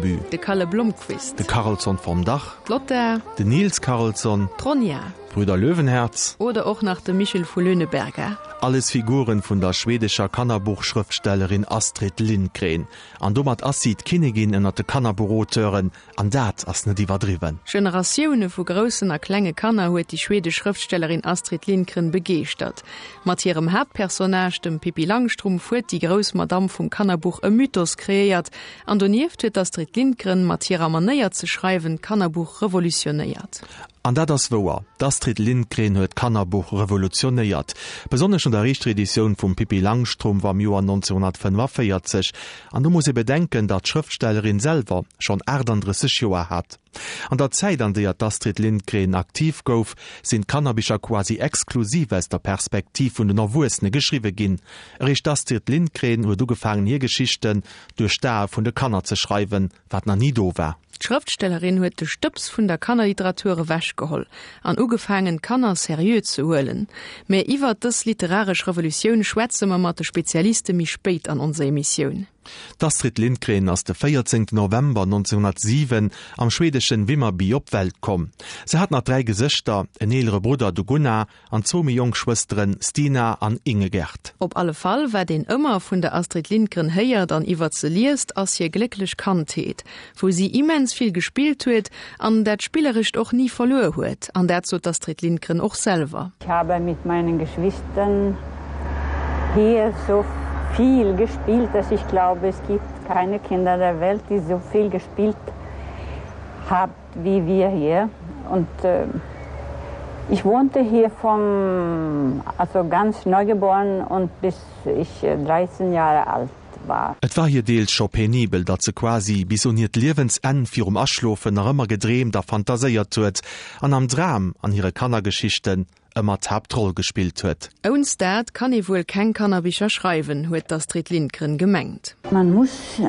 Bullerby. De Kalle Blomkvist. De Karlsson vom Dach. D'Lotta. Den Nils Karlsson. D'Ronja. D'Brüder Löwenherz. Oder och nach de Michel vu Löhneberga. Alles Figuren vun der schwedescher Kannerbuchschrëftstellerin Astrid Lindgren. An domat ass si d'Kinnigin ënnert de Kannerbuchauteuren, An dat ass net iwwerdriwwen. Generatioune vu groussen a klenge Kanner huet déi schwedesch Schrëftstellerin Astrid Lindgren begeeschtert. Mat hirem Haaptpersonnage, dem Pippi Langstrumpf, huet déi grouss Madamm vum Kannerbuch e Mythos kreéiert. An donieft huet d'Astrid Lindgren mat hirer Manéier ze schreiwen d'Kannerbuch revolutionéiert. An dat ass wouer, d'Astrid Lindgren huet d'Kannerbuch revolutionéiert. Besonnesch no der éischter Editioun vum Pippi Langstrumpf am Joer 1945. An do muss ee bedenken, datt d'Schrëftstellerin selwer schonn 38 Joer hat. An der Zäit, an deeër d'Astrid Lindgren aktiv gouf, sinn d'Kannerbicher quasi exklusiv aus der Perspektiv vun den Erwuessene geschriwwe ginn. Eréischt d'Astrid Lindgren huet ugefaangen hir Geschichten duerch d'Ae vun de Kanner ze schreiwen, wat nach ni do war. D'Schrëftstellerin huet de Stëbs vun der Kannerliteratur ewechgeholl an ugefaangen, d'Kanner seriö ze huelen. Mä iwwert dës literaresch Revolutioun schwätze mer mat de Spezialiste méi spéit an onser Emissioun. D'Astrid Lindgren ass de 14 November 1907 am schweedeschen Vimmerby op d'Welt komm. Se hat nach 3 Gesëschter, en eelere Brudder, de Gunnar, An zwou méi jonk Schwësteren, Stina an Ingegerd. Op alle Fall, wat een ëmmer vun der Astrid Lindgren héiert an iwwert se liest, ass hir glécklech Kandheet, wou si immens vill gespillt huet an dat Spillerescht och ni verluer huet. An dat sot d'Astrid Lindgren och selwer. Ich habe mit meinen Geschwistern hier so viel gespielt, dass ich glaube, es gibt keine Kinder der Welt, die so viel gespielt haben. wie wir hier und äh, ich wohnte hier vom also ganz neugeboren und bis ich 13 äh, Jahre alt war. Et war hir deels scho penibel, datt se quasi bis un hiert Liewensenn virum Aschlofen nach ëmmer gedreemt a fantaséiert huet an am Dram an hire Kannergeschichten ëmmer d'Haaptroll gespillt huet. Ounst dat kann ee wuel keng Kannerbicher schreiwen, huet d'Astrid Lindgren gemengt. Man muss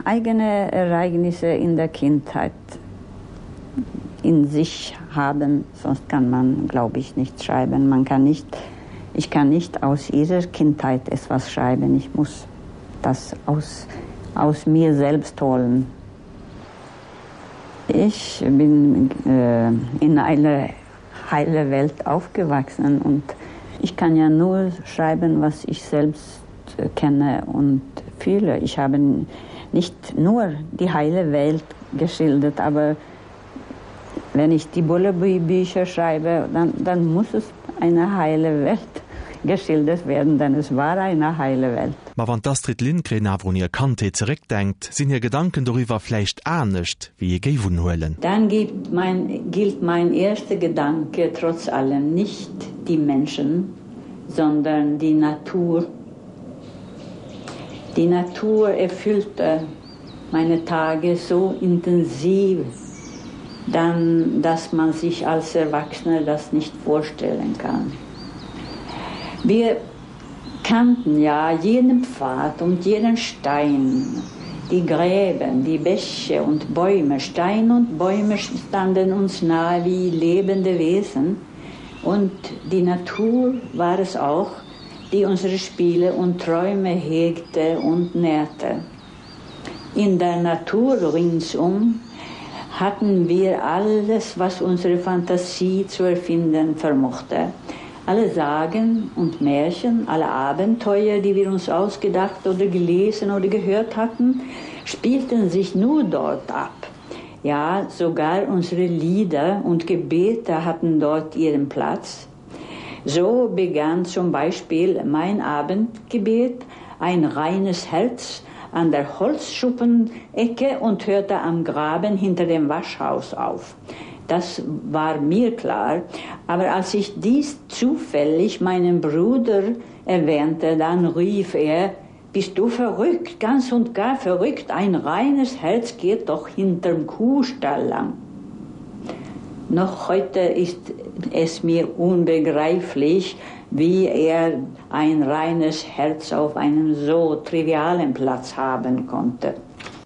eigene Ereignisse in der Kindheit in sich haben, sonst kann man, glaube ich, nicht schreiben. Man kann nicht, ich kann nicht aus ihrer Kindheit etwas schreiben. Ich muss das aus, aus mir selbst holen. Ich bin äh, in einer heile Welt aufgewachsen und ich kann ja nur schreiben, was ich selbst kenne und fühle. Ich habe nicht nur die heile Welt geschildert, aber wenn ich die Bullerbücher schreibe, dann, dann muss es eine heile Welt geschildert werden, denn es war eine heile Welt. Ma wann d'Astrid Lindgren awer un hir Kandheet zeréckdenkt, sinn hir Gedanken doriwwer vläicht anescht, wéi ee géif unhuelen. Dann gibt mein, gilt mein erster Gedanke trotz allem nicht die Menschen, sondern die Natur. Die Natur erfüllte meine Tage so intensiv, dann, dass man sich als Erwachsener das nicht vorstellen kann. Wir kannten ja jeden Pfad und jeden Stein, die Gräben, die Bäche und Bäume, Stein und Bäume standen uns nahe wie lebende Wesen und die Natur war es auch, die unsere Spiele und Träume hegte und nährte. In der Natur ringsum hatten wir alles, was unsere Fantasie zu erfinden vermochte. Alle Sagen und Märchen, alle Abenteuer, die wir uns ausgedacht oder gelesen oder gehört hatten, spielten sich nur dort ab. Ja, sogar unsere Lieder und Gebete hatten dort ihren Platz. So begann zum Beispiel mein Abendgebet ein reines Herz an der Holzschuppenecke und hörte am Graben hinter dem Waschhaus auf. Das war mir klar, aber als ich dies zufällig meinem Bruder erwähnte, dann rief er: Bist du verrückt, ganz und gar verrückt, ein reines Herz geht doch hinterm Kuhstall lang. Noch heute ist es mir unbegreiflich, wie er ein reines Herz auf einem so trivialen Platz haben konnte.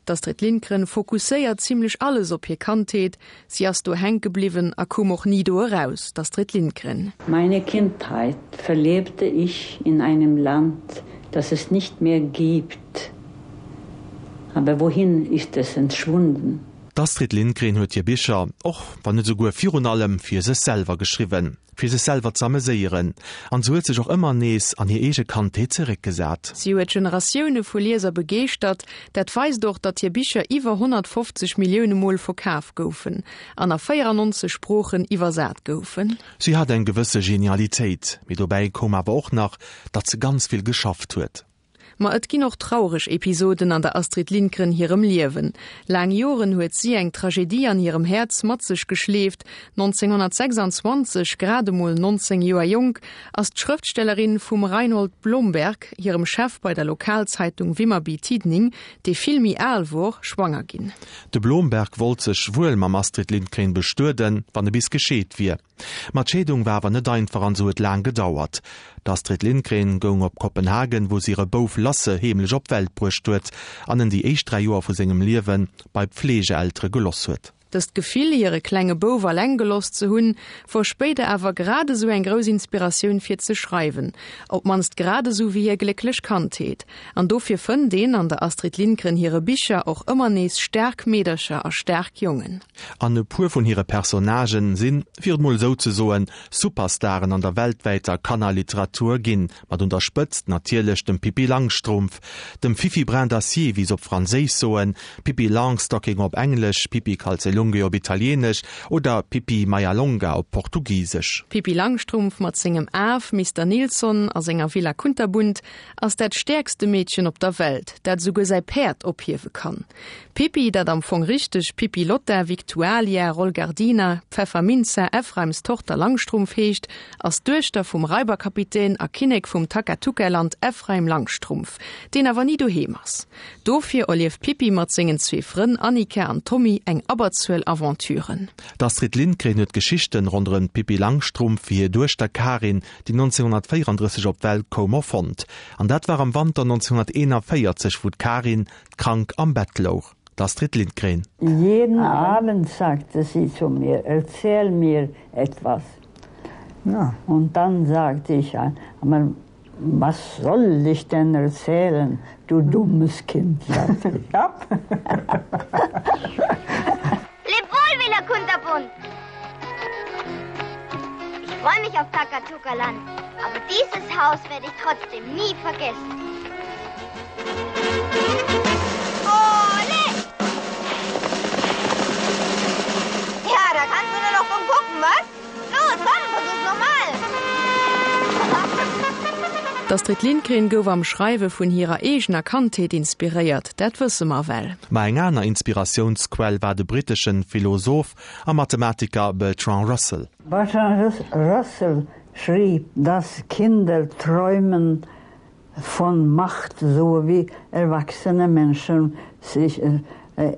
D'Astrid Lindgren fokusséiert zimlech alles op hir Kandheet. Si ass do hänke bliwwen a koum och ni do eraus. D'Astrid Lindgren. Meine Kindheit verlebte ich in einem Land, das es nicht mehr gibt. Aber wohin ist es entschwunden? D'Astrid Lindgren huet hir Bicher, och wann net esouguer virun allem, fir sech selwer geschriwwen, fir sech selwer z'ameséieren. An se huet sech och ëmmer nees an hir eege Kandheet zeréckgesat. Si huet Generatioune vu Lieser begeeschtert. Dat weist och, datt hir Bicher iwwer 150 Millioune Mol verkaf goufen an a 94 Sproochen iwwersat goufen. Si hat eng gewësse Genialitéit, mee dobäi koum awer och nach, datt se ganz vill geschafft huet. Ma et ginn och traureg Episoden an der Astrid Lindgren hirem Liewen. Laang Joren huet si eng Tragedie an hirem Häerz mat sech geschleeft. 1926, grad emol 19 Joer jonk, ass d'Schrëftstellerin vum Reinhold Blomberg, hirem Chef bei der Lokalzeitung Vimmerby Tidning, dee vill méi al wor, schwanger ginn. De Blomberg wollt sech wuel mam Astrid Lindgren bestueden, wann e bis gescheet wier. Ma d'Scheedung war awer net einfach an se huet laang gedauert. D'Astrid Lindgren goung op Kopenhagen, wou se hire Bouf Lasse heemlech op d'Welt bruecht huet an en déi éischt 3 Joer vu sengem Liewe bei Pflegeeltere geloss huet. Dëst Gefill, hire klenge Bouf alleng geloss ze hunn, wor spéider awer grad esou eng grouss Inspiratioun fir ze schreiwen, op d'mannst grad esou wéi hir glécklech Kandheet. An dofir fënnt een an der Astrid Lindgren hire Bicher och ëmmer nees staark Meedercher a staark Jongen. An e puer vun hire Personnagen sinn, fir et mol esou ze soen, Superstaren an der weltwäiter Kannerliteratur ginn, mat un der Spëtzt natierlech dem Pippi Langstrumpf, dem Fifi Brin d'Acier, wéi se op Franséisch soen, Pippi Longstocking op Englesch, Pippi Calzelunghe op Italieenesch oder Pippi Maialonga op Portugisesch. D'Pippi Langstrumpf mat sengem Af Mister Nilsson a senger Villa Kunterbunt ass dat stäerkste Meedchen op der Welt, dat esouguer säi Päerd ophiewe kann. D'Pippi, dat am Fong richteg Pippi Lotta Victualia Rolgardina Pfefferminza Ephraims Tochter Langstrumpf heescht, ass d'Duechter vum Raiberkapitän a Kinnek vum Takatuka-Land Ephraim Langstrumpf, deen awer ni doheem ass. Dofir erlieft d'Pippi mat sengen zwee Frënn Annika an Tommy eng Abberzuel Aventuren. D'Astrid Lindgren huet d'Geschichten ronderëm d'Pippi Langstrumpf fir hir Duechter Karin, déi 1934 op d'Welt koum, erfonnt. An dat war am Wanter 1941, wou d'Karin krank am Bett louch. D'Astrid Lindgren. Jeden Abend sagte sie zu mir, erzähl mir etwas. Ja. Und dann sagte ich, aber was soll ich denn erzählen, du dummes Kind? Sagte ich. Ja. Leb wohl, Villa Kunterbunt! Ich freue mich auf Takatuka-Land, aber dieses Haus werde ich trotzdem nie vergessen. Ole! Ja, da kannst du nur noch dumm gucken, was? Los, komm, versuch's nochmal! D'Astrid Lindgren gouf am Schreiwe vun hirer eegener Kandheet inspiréiert, dat wësse mer well. Ma eng aner Inspiratiounsquell war de britteschen Philosoph a Mathematiker Bertrand Russell. Bertrand Russell schrieb, dass Kinder träumen von Macht, so wie erwachsene Menschen sich äh,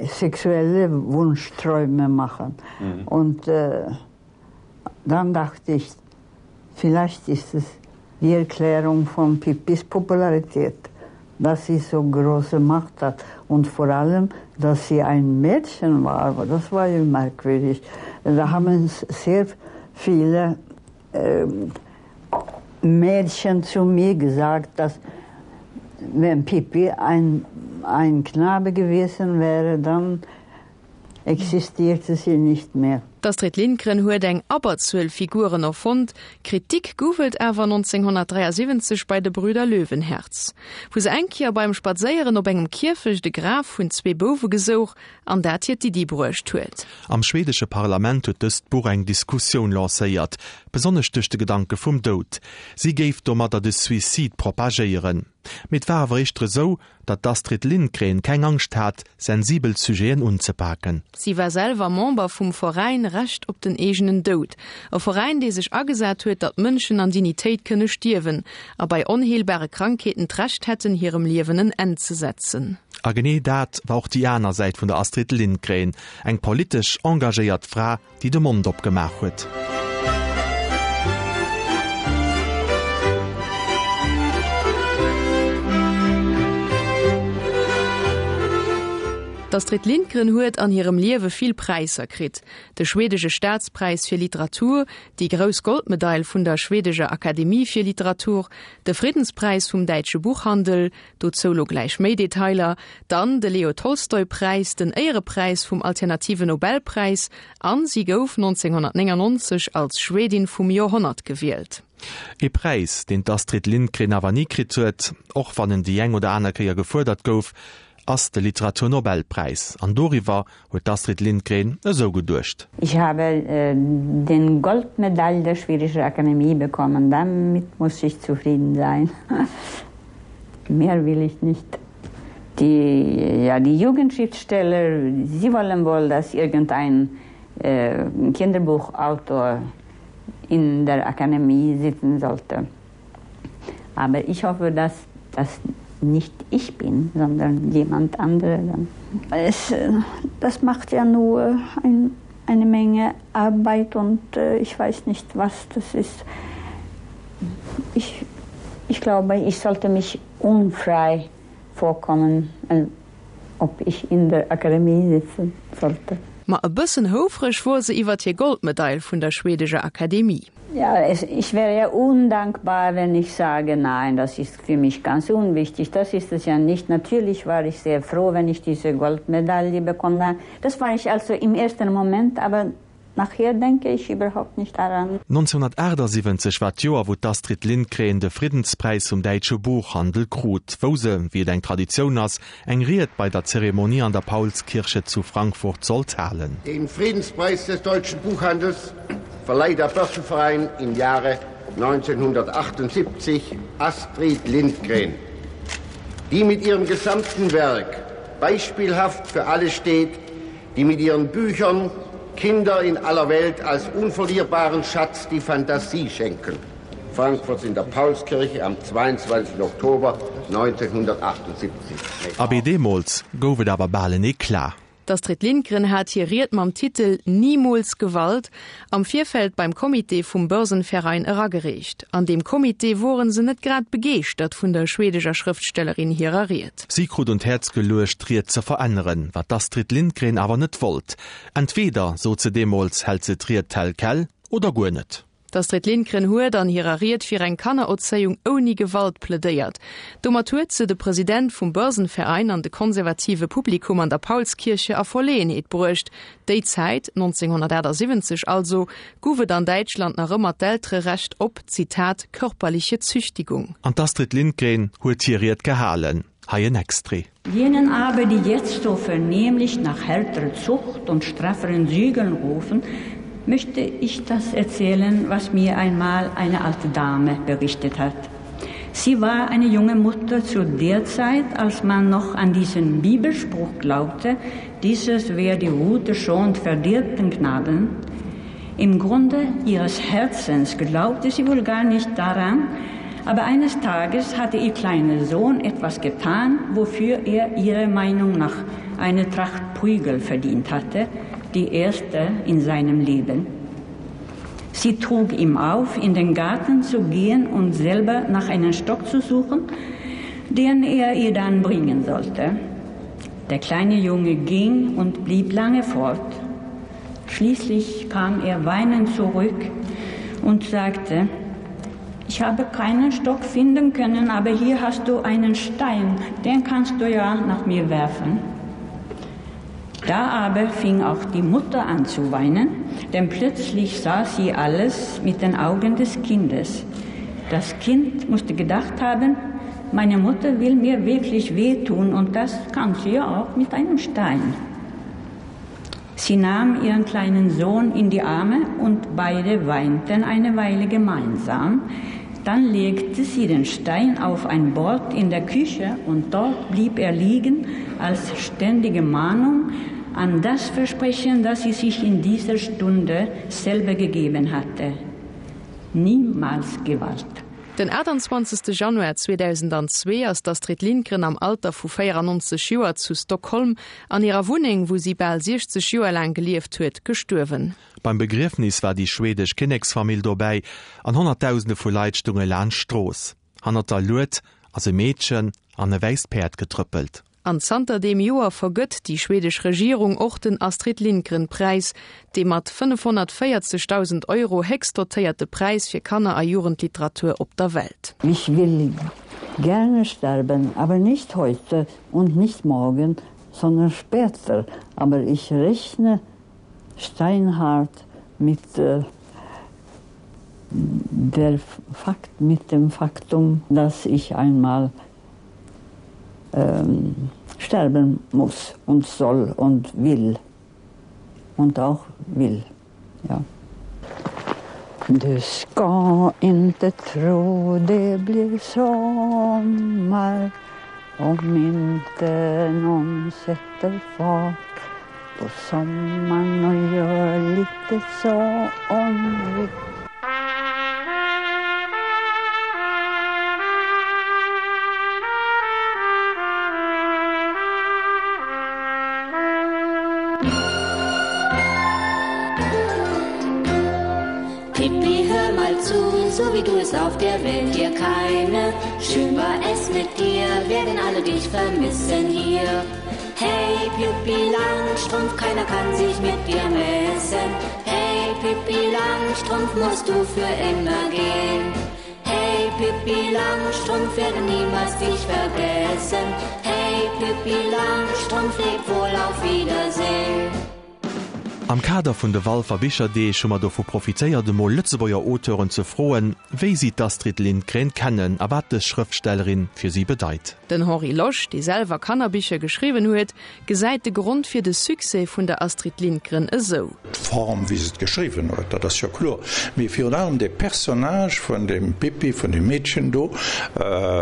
sexuelle Wunschträume machen. Mhm. Und äh, dann dachte ich, vielleicht ist es die Erklärung von Pippis Popularität, dass sie so große Macht hat und vor allem, dass sie ein Mädchen war, aber das war ja merkwürdig. Da haben sehr viele äh, Mädchen zu mir gesagt, dass wenn Pippi ein, ein Knabe gewesen wäre, dann existierte sie nicht mehr. D'Astrid Lindgren huet eng Abberzuel Figuren erfonnt, Kritik gouf et awer 1973 bei de Brüder Löwenherz, wou se eng Kéier beim Spadséieren op engem Kierfecht e Graf vun zwee Bouwe gesouch an dat hir d'Iddi bruecht huet. Am schwedesche Parlament huet dëst Buch eng Diskussioun lancéiert, besonnesch duerch de Gedanke vum Doud. Si géif domadder de Suicide propagéieren. Mee et war awer éischter esou, datt d'Astrid Lindgren keng Angscht hat, sensibel Sujeten unzepaken. Si war selwer Member vum Veräin Recht op den eegenen Doud, e Veräin, dee sech agesat huet, datt Mënschen an Dignitéit kënne stierwen a bei onheelbare Krankheeten d'Recht hätten, hirem Liewen en Enn ze setzen. A genee dat war och déi aner Säit vun der Astrid Lindgren, eng politesch engagéiert Fra, déi de Mond opgemaach huet. D'Astrid Lindgren huet an hirem Liewe vill Präisser kritt, de schwedesche Staatspräis fir Literatur, déi grouss Goldmedail vun der schwedescher Akademie fir Literatur, de Friddenspräis vum däitsche Buchhandel, dozou lo gläich méi Detailer, dann de Leo Tolstoi Präis, den Éierepräis vum alternative Nobelpräis an si gouf 1999 als Schwedin vum Joerhonnert gewielt. Ee Präis, deen d'Astrid Lindgren awer ni kritt huet, och wann en déi eng oder aner Kéier gefuerdert gouf, ass de Literaturnobelpräis. An doriwwer huet d'Astrid Lindgren esou geduecht. Ich habe den Goldmedaille der schwedischen Akademie bekommen, damit muss ich zufrieden sein. Mehr will ich nicht. Die, ja, die Jugendschriftsteller, sie wollen wohl, dass irgendein äh, Kinderbuchautor in der Akademie sitzen sollte. Aber ich hoffe, dass das nicht ich bin, sondern jemand anderer. Es, äh, das macht ja nur ein, eine Menge Arbeit und äh, ich weiß nicht, was das ist. Ich, ich glaube, ich sollte mich unfrei vorkommen, äh, ob ich in der Akademie sitzen sollte. Ma e bëssen houfreg wor se iwwert hir Goldmedail vun der schwedescher Akademie. Ja, es, ich wäre ja undankbar, wenn ich sage, nein, das ist für mich ganz unwichtig. Das ist es ja nicht. Natürlich war ich sehr froh, wenn ich diese Goldmedaille bekommen habe. Das war ich also im ersten Moment, aber nachher denke ich überhaupt nicht daran. 1978 war d'Joer, wou d'Astrid Lindgren de Friddenspräis vum däitsche Buchhandel krut, wou se, wéi et eng Traditioun ass, eng Ried bei der Zeremonie an der Paulskirche zu Frankfurt sollt halen. Den Friedenspreis des deutschen Buchhandels verleiht der Börsenverein im Jahre 1978 Astrid Lindgren, die mit ihrem gesamten Werk beispielhaft für alle steht, die mit ihren Büchern Kinder in aller Welt als unverlierbaren Schatz die Fantasie schenken. Frankfurt in der Paulskirche am 22. Oktober 1978. Abee deemools gouf et awer bal en Eclat. D'Astrid Lindgren hat hir Ried mam Titel Niemals Gewalt am Virfeld beim Comité vum Börsenverein eragereecht. An deem Comité woren se net grad begeeschtert vun der schwedeger Schrëftstellerin hirer Ried. Si krut un d'Häerz geluecht, d'Ried ze veränneren, wat d'Astrid Lindgren awer net wollt. Entweder, sot se deemools, hält se d'Ried tel quel oder guer net. D'Astrid Lindgren huet an hirer Ried fir eng Kannererzéiung ouni Gewalt plädéiert. Domat huet se de President vum Börsenverein an de konservative Publikum an der Paulskirche a Verleeënheet bruecht. Déi Zäit, 1978 also, guff et an Däitschland nach ëmmer d'Eltererecht op, Zitat, körperliche Züchtigung. An d'Astrid Lindgren huet hir Ried gehalen. Hei en Extrait. Jenen aber, die jetzt so vernehmlich nach härterer Zucht und strafferen Zügeln rufen, möchte ich das erzählen, was mir einmal eine alte Dame berichtet hat. Sie war eine junge Mutter zu der Zeit, als man noch an diesen Bibelspruch glaubte, dieses wer die Rute schont verdirbt den Knaben. Im Grunde ihres Herzens glaubte sie wohl gar nicht daran, aber eines Tages hatte ihr kleiner Sohn etwas getan, wofür er ihrer Meinung nach eine Tracht Prügel verdient hatte, die erste in seinem Leben. Sie trug ihm auf, in den Garten zu gehen und selber nach einem Stock zu suchen, den er ihr dann bringen sollte. Der kleine Junge ging und blieb lange fort. Schließlich kam er weinend zurück und sagte: Ich habe keinen Stock finden können, aber hier hast du einen Stein, den kannst du ja nach mir werfen. Da aber fing auch die Mutter an zu weinen, denn plötzlich sah sie alles mit den Augen des Kindes. Das Kind musste gedacht haben, meine Mutter will mir wirklich wehtun und das kann sie ja auch mit einem Stein. Sie nahm ihren kleinen Sohn in die Arme und beide weinten eine Weile gemeinsam. Dann legte sie den Stein auf ein Bord in der Küche und dort blieb er liegen als ständige Mahnung an das Versprechen, das sie sich in dieser Stunde selber gegeben hatte. Niemals Gewalt. Den 28. Januar 2002 ass d'Astrid Lindgren am Alter vu 94 Joer zu Stockholm an hirer Wunneng, wou si bal 60 Joer laang gelieft huet, gestuerwen. Beim Begriefnis war déi schwedesch Kinneksfamill dobäi an Honnertdausende vu Leit stounge laanscht d'Strooss. Hannert der Lued ass e Meedchen an e wäisst Päerd getrëppelt. An zanter deem Joer vergëtt déi schwedesch Regierung och den Astrid Lindgren Präis, dee mat 540.000 Euro héchst dotéierte Präis fir Kanner a Jugendliteratur op der Welt. Ich will gerne sterben, aber nicht heute und nicht morgen, sondern später. Aber ich rechne steinhart mit äh, der Fakt, mit dem Faktum, dass ich einmal ähm, sterben muss und soll und will und auch will. Ja. Du ska inte tro det blir sommar om inte någon sätter fart på sommaren och gör lite somrigt. Pippi, hör mal zu, so wie du es auf der Welt dir keine. Schön war es mit dir, werden alle dich vermissen hier. Hey Pippi Langstrumpf, keiner kann sich mit dir messen. Hey Pippi Langstrumpf, musst du für immer gehen. Hey Pippi Langstrumpf, werden niemals dich vergessen. Hey Pippi Langstrumpf, leb wohl auf Wiedersehen. Am Kader vun de Walfer Bicherdeeg hu mer dovu profitéiert emol Lëtzebuerger Auteuren ze froen, wéi si d'Astrid Lindgren kennen a wat dës Schrëftstellerin fir si bedeit. Den Henri Losch, dee selwer Kannerbicher geschriwwen huet, gesäit de Grond fir de Succès vun der Astrid Lindgren esou. D'Form wéi se et geschriwwen huet, dat ass jo kloer, mee virun allem de Personnage vun dem Pippi, vun dem Meedchen do,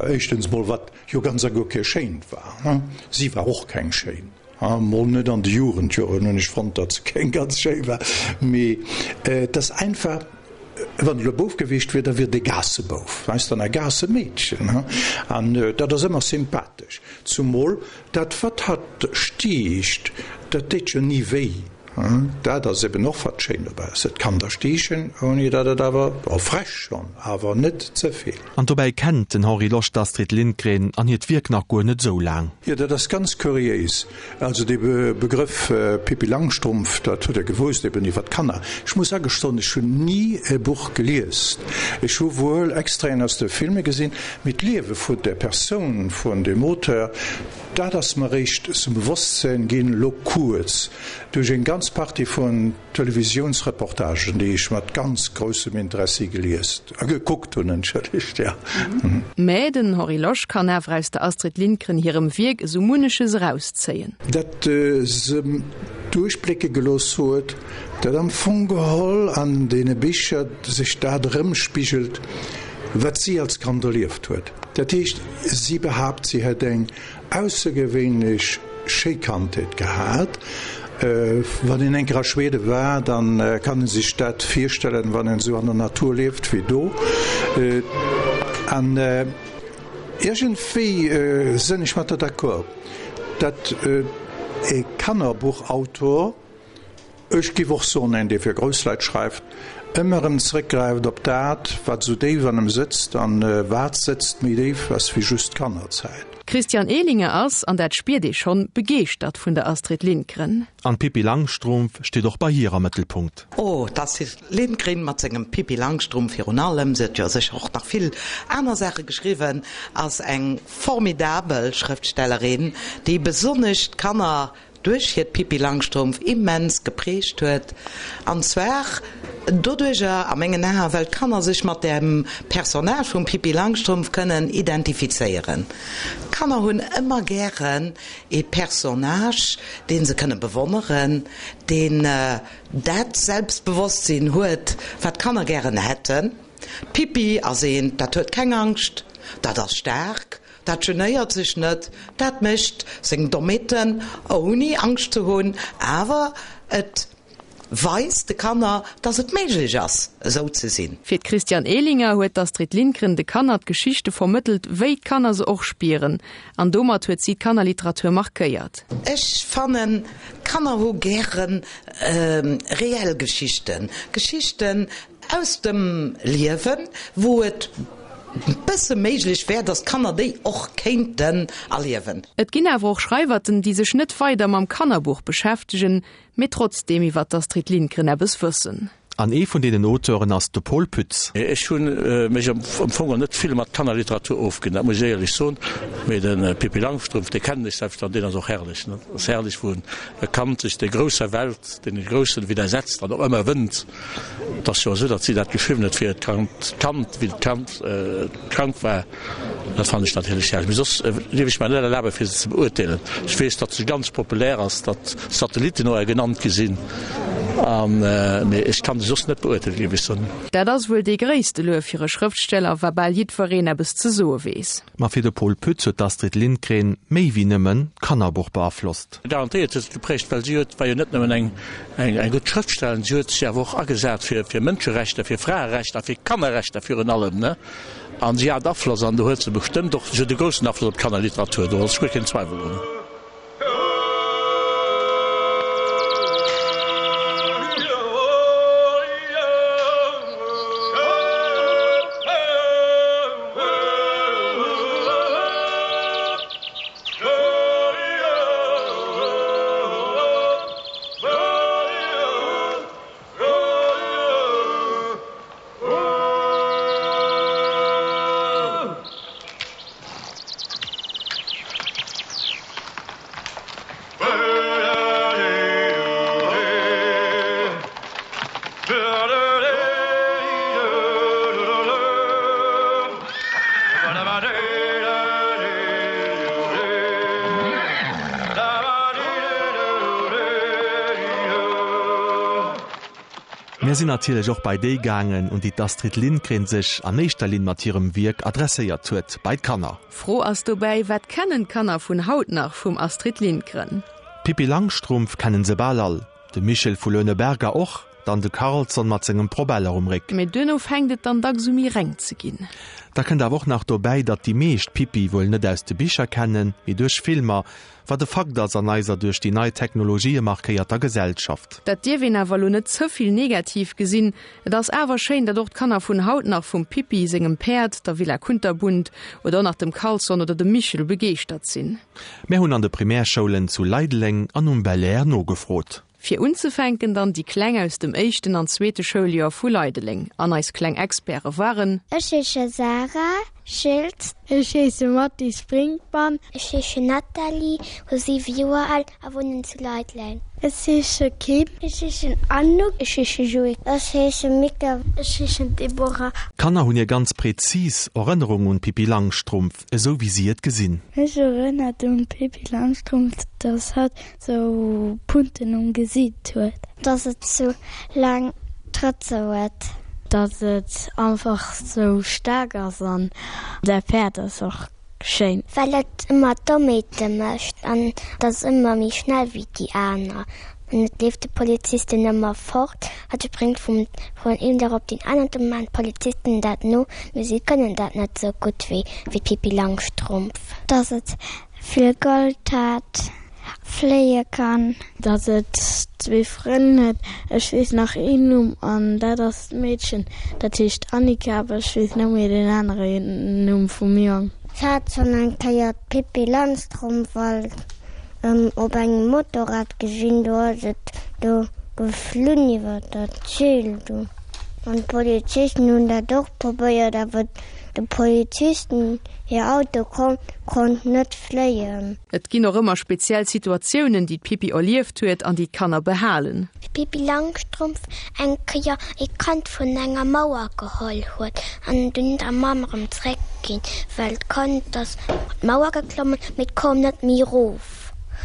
éischtens mol wat jo ganz a guer kee schéint war, si war och keng schéin. Mol net an de Jugendjoren hunn ech fonnt, datt se keng ganz schéi war, mee et ass einfach, wann et elo e Bouf gewiescht wier, da wier et e Gaassebouf, weess de, an e Gaassemeedchen, an dat ass ëmmer sympathesch, zumol dat wat hatt stiicht, dat deet jo ni wéi. Dat ass eben och wat schéin dobäi ass, et kann der stiichen, ouni datt et awer, bon, frech schonn, awer net ze vill. An dobäi kennt den Henri Losch d'Astrid Lindgren an hiert Wierk nach guer net esou laang. Jo, dat ass ganz kuriéis. Also dee Begrëff Pippi Langstrumpf, dat huet Der gewousst, eben iwwer d'Kanner. Ech muss agestoen, ech hunn ni e Buch gelies. Ech hu wuel Extraiten aus de Filme gesinn, mee d'Liewe vun der Persoun vun deem Auteur, Dat ass mer réischt zum Bewosstsän ginn, lo kuerz, duerch eng ganz Partie vun Televisiounsreportagen, déi ech mat ganz groussem Interessi gelies, a gekuckt hunn, entschëllegt, jo. Mä den Henri Losch kann awer aus der Astrid Lindgren hirem Wierk esou munneches erauszéien. Dat se duerchblécke gelooss huet, dat am Fong geholl an deene Bicher sech dat erëmspigelt, wat si als Kand erlieft huet. Dat heescht, si behaapt, si hätt eng aussergewéinlech schéi Kandheet gehat. Wann een eng Kéier a Schwede war, da kann ee sech dat virstellen, wann een esou an der Natur lieft wéi do. An iergendwéi sënn ech mat der d'accord, datt e Kannerbuchautor, Ech giff och soen, een dee fir grouss Leit schreift, ëmmer erëm zréckgräift op dat, wat esou déif an em sëtzt, an wat sëtzt méi déif ass wéi just d'Kannerzäit. D'Christiane Ehlinger ass, an dat spiert ee schonn, begeeschtert vun der Astrid Lindgren. An d'Pippi Langstrumpf steet och bei hir am Mëttelpunkt. Oh, d'Astrid Lindgren mat sengem Pippi Langstrumpf virun allem, se huet jo sécher och nach vill aner Saache geschriwwen, ass eng formidabel Schrëftstellerin, déi besonnesch d'Kanner duerch hiert Pippi Langstrumpf immens geprägt huet, an zwar doduercher, a mengen Aen, well d'Kanner sech mat dem Personnage vum Pippi Langstrumpf kënnen identifizéieren. D'Kanner hunn ëmmer gären ee Personnage, dee se kënne bewonneren, deen dat Selbstbewosstsinn huet, wat d'Kanner gären hätten. D'Pippi ass eent, dat huet keng Angscht, dat ass staark, Dat genéiert sech net, dat mécht seng Dommheeten ouni Angscht ze hunn, awer et weist de Kanner, dass et méiglech ass, esou ze sinn. Fir d'Christiane Ehlinger huet d'Astrid Lindgren de Kanner d'Geschichte vermëttelt, wéi d'Kanner se och spieren. An domat huet si d'Kannerliteratur markéiert. Ech fannen, d'Kanner hu gäre reell Geschichten, Geschichten, Aus dem Liewen, wou et. bësse méiglech wär, datt d'Kanner déi och kéinten erliewen. Et ginn awer och Schreiwerten, déi sech net weider mam Kannerbuch beschäftegen, mee trotzdeem iwwer d'Astrid Lindgren eppes wëssen. An ee vun deenen Auteuren ass de Pol Pütz. Ech hu mech am Fong net vill mat Kannerliteratur ofginn, dat muss ech éierlech soen. Mee de Pippi Langstrumpf, dee kennen ech selbst an deen ass och herrlech. Et ass herrlech, wou e Kand sech der grousser Welt, deene Groussen widdersetzt an och ëmmer wënnt. Et ass jo esou, datt si dat geschriwwen huet fir hiert Kand, wéi d'Kand krank war. Dat fannen ech natierlech herrlech. Mee soss dierf ech mer net erlaben, fir se ze beurteelen. Ech weess, datt se ganz populär ass, datt Satellitten no genannt gi sinn, an, mee ech kann se soss net beurteelen, géif ech soen. Dat ass wuel dee gréisste Luef fir e Schrëftsteller, wa bal jiddwereen eppes ze soe weess. Ma fir de Pol Pütz huet d'Astrid Lindgren méi wéi nëmmen d'Kannerbuch beaflosst. Garantéiert huet se geprägt, well si huet, war jo net nëmmen eng eng gutt Schrëftstellerin, si huet sech awer och agesat fir fir Mënscherechter, fir Fraerechter a fir Kannerrechter virun allem, ne. An si hat Afloss, an do huet se bestëmmt och, si huet e groussen Afloss op d'Kannerliteratur, do ass guer keen Zweiwel drun. Mir sinn natierlech och bei déi gaangen, un déi d'Astrid Lindgren sech an éischter Linn mat hirem Wierk adresséiert huet, bei d'Kanner. D'Fro ass dobäi, Wat kennen d'Kanner vun haut nach vum Astrid Lindgren? D'Pippi Langstrumpf kennen se bal all, de Michel vu Leuneberger och, dann de Karlsson mat sengem Probeller um Réck. Mee duerno fänkt et dann dacks u méi reng ze ginn. Da kënnt awer och nach dobäi, datt déi meescht d'Pippi wuel net aus de Bicher kennen, mee duerch Filmer, Wat e Fakt ass an eiser duerch déi nei Technologië markéierter Gesellschaft. Dat dierf een awer elo net ze vill negativ gesinn. Et ass awer schéin, datt och d'Kanner vun haut nach vum Pippi sengem Päerd, der Villa Kunterbunt oder och nach dem Karlsson oder dem Michel begeeschtert sinn. Mär hunn an de Primärschoulen zu Leideleng an um Belair nogefrot. Fir unzefänken dann déi Kleng aus dem éischten an zweete Schouljoer vu Leideleng. An eis kleng Experte waren. Ech heesche Sarah Schiltz. Ech heesche Mathis Brinkmann. Ech heesche Nathalie, hu 7 Joer al a wunnen zu Leideleng. Ech heesche Kim. Ech heeschen Anouk. Ech heesche Joé. Ech heesche Mika. Ech heeschen Deborah. D'Kanner hunn hir ganz präzis Erënnerung un d'Pippi Langstrumpf, esou wéi si et gesinn. Mech erënnert un d'Pippi Langstrumpf, dass hatt Sou Punten um Gesiit huet. Dass et sou laang Trëtze huet. Dass et einfach sou staark ass an säi Päerd ass och schéin. Well et ëmmer Dommheete mécht an et ass ëmmer méi schnell wéi déi aner an et leeft de Polizisten ëmmer fort. Hatt spréngt vum vun een Dag op deen aneren. Do maan d'Polizisten dat no, mee si kënnen dat net sou gutt wéi d'Pippi Langstrumpf. Dass et vill Gold hat. Fléie kann. Datt et zwee Frënn huet. Ech weess nach een Numm an dat ass d'Meedchen, dat heescht Annika, awer ech weess net méi deen anere Numm vum Jong. Ech hat schonn eng Kéier d'Pippi Langstrumpf op engem Motorrad gesinn, do ass et do geflunn iwwer dat Zil do. An d'Polizisten hunn dat och probéiert, awer de Polizisten hir Auto konnt net fléien. Et ginn och ëmmer speziell Situatiounen, déi d'Pippi erlieft huet an déi d'Kanner behalen. D'Pippi Langstrumpf eng Kéier ee Kand vun enger Mauer geholl huet an dunn der Mamm erëm zréck ginn, well d'Kand ass op d'Mauer geklommen, mee et koum net méi erof.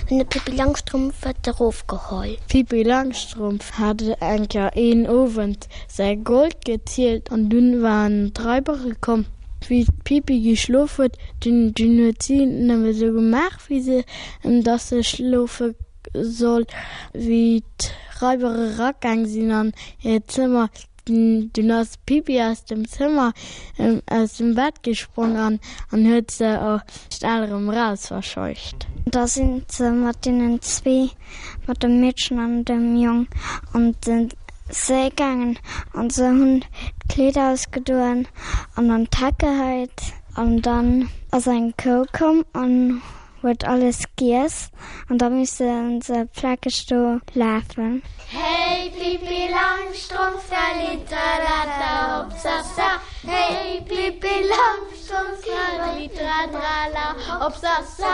Dunn huet d'Pippi Langstrumpf et erof geholl. D'Pippi Langstrumpf hat eng Kéier een Owend säi Gold gezielt an dunn waren d'Raibere komm. Wéi d'Pippi geschlof huet, dunn dunn huet si nëmme sou gemaach, wéi se, dass se schlofe soll. Wéi d'Raiber eragaang sinn an hiert Zëmmer, dunn ass d'Pippi aus dem Zëmmer, aus dem Bett gesprong an an huet se schnell erëm eraus verscheucht. Da sinn se mat deenen zwee, mat dem Meedchen an dem Jong an den. Séi gaangen an se hunn d'Kleeder ausgedoen an an d'Heck geheit an dann ass eng Kou komm an huet alles giess an da musse se plakeg do lafen. Hey Pippi Langstrumpf, trallitralala hopsasa, hey Pippi Langstrumpf, trallitratrala hopsasa,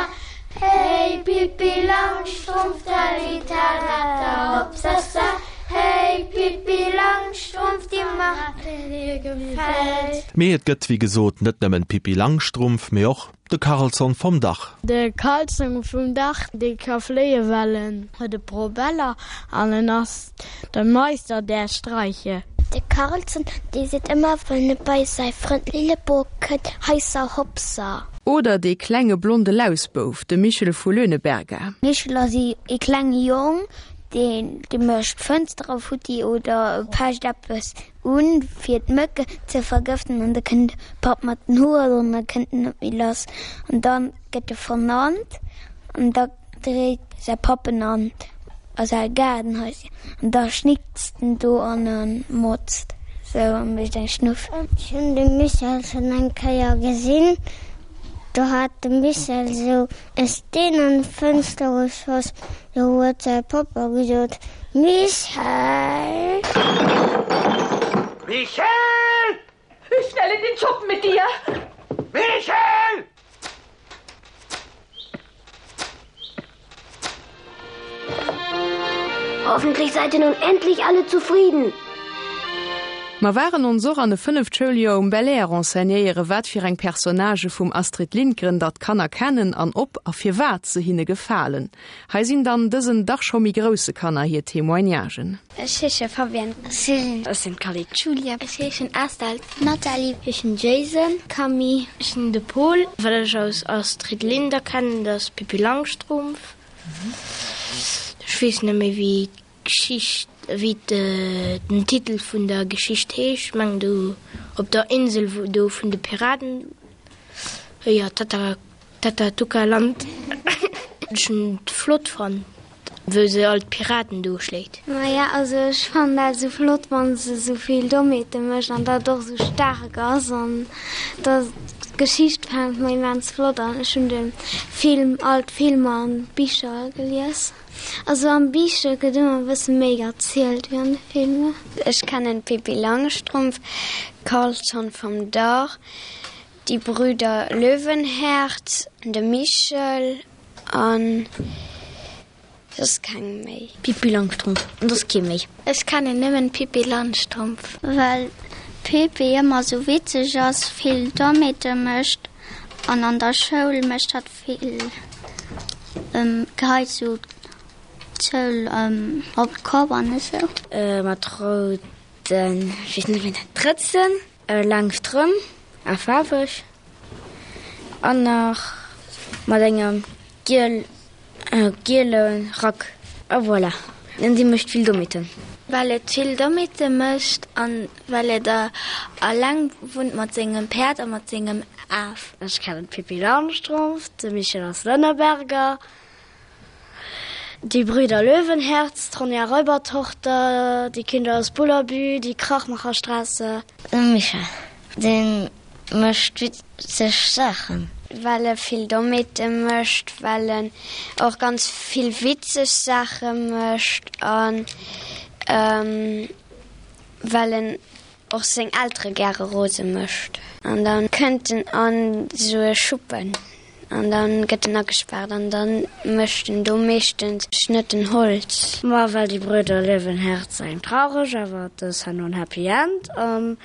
hey Pippi Langstrumpf, trallitralala hopsasa, hey Pippi Langstrumpf, die Macht, die dir gefällt. Mee et gëtt wéi gesot net nëmmen d'Pippi Langstrumpf, mee och De Karlsson vom Dach. De Karlsson vum Dach, dee ka fléie well en huet e Probeller an en ass de Meister der Streiche. De Karlsson, dee seet ëmmer wann e bei säi Frënd Lilleborg kënnt, Heisser Hopser. Oder dee klenge blonde Lausbouf, de Michel vu Löhneberga. Michel ass ee klenge Jong, deen mécht d'Fënstere futti oder pecht eppes Un fir d'Mëcken ze vergëften an da kënnt de Papp mat den Hoer an da kënnt en net méi lass an da gëtt e vernannt an da dréit säi Papp en an a säi Gaardenhaisschen an da schnickst en do an e motzt sou a mécht eng Schnuff. Ech hunn de Michel schonn eng Kéier gesinn, do hat de Michel sou e Steen an d'Fënster geschoss, do huet säi Pappa gesot, Michel! Michel! Schnell in den Schuppen mit dir! Michel! Hoffentlich seid ihr nun endlich alle zufrieden. Mer waren ons och an e fënneft Schouljoer um Belair renseignéiere wat fir eng Personnagë vum Astrid Lindgren datt d'Kanner kennen an ob a firwat se hinne gefalen. Hei sinn dann dësen dach scho méi grousse Kanner hir Témoignagen. Ech heesche Fabienne. Céline. Ech sinn d'Cally. Julia. Ech heeschen Estelle. Nathalie. Ech heeschen Jason. Camille. Ech sinn de Paul. Wat ech aus Astrid Linder kennen, dat ass Pippi Langstrumpf. Ech weess net méi wéi d'Geschicht, wéi den Titel vun der Geschicht heescht. Ech mengen do op der Insel wou do vun de Piraten, jo Tata Tatatuka-Land. Ech hunn et flott fonnt wou se all d'Piraten do schléit. Maja also ech fannen dat esou flott wann se esou vill Dommheete mécht an dat och esou staark ass an da d'Geschicht fänkt mer immens flott an. Ech hunn de Film, all d'Filmer an d'Bicher gelies. Also am Bicher gëtt ëmmer e bësse méi erzielt wéi an de Filmer. Ech kennen d'Pippi Langstrumpf, Karlsson vom Dach, Die Brüder Löwenherz, de Michel an soss keng méi. Pippi Langstrumpf an soss kee méi. Ech kennen nëmmen d'Pippi Langstrumpf. Well d'Pippi ëmmer sou witzeg ass, vill Dommheete mécht an an der Schoul mécht hatt vill, geheit sou d'Schoul op d'Kopp an esou. Mat rouden, ech weess net wéi een dat, Drëtzen. Laang Strëmp a faarweg an nach mat engem giel giele Rack a voilà. An si mécht vill Dommheeten. Well et vill Dommheete mécht an well et alleng wunnt mat sengem Päerd a mat sengem Af. Ech kennen d'Pippi Langstrumpf, de Michel aus Lënneberger, Die Brüder Löwenherz, d'Ronja Räubertochter, Die Kinder aus Bullerbü, Die Krachmacherstraße. De Michel, dee mécht witzeg Saachen. Well e vill Dommheete mécht, well en och ganz vill witzeg Saache mécht a well en och seng Eltere gäre rose mécht. An da kënnt en an esou e Schuppen an da gëtt en agespaart an da mécht en do meeschtens Schnëtten Holz. Ma well Die Brüder Löwenherz eng traureg, awer dës herno en Happy End an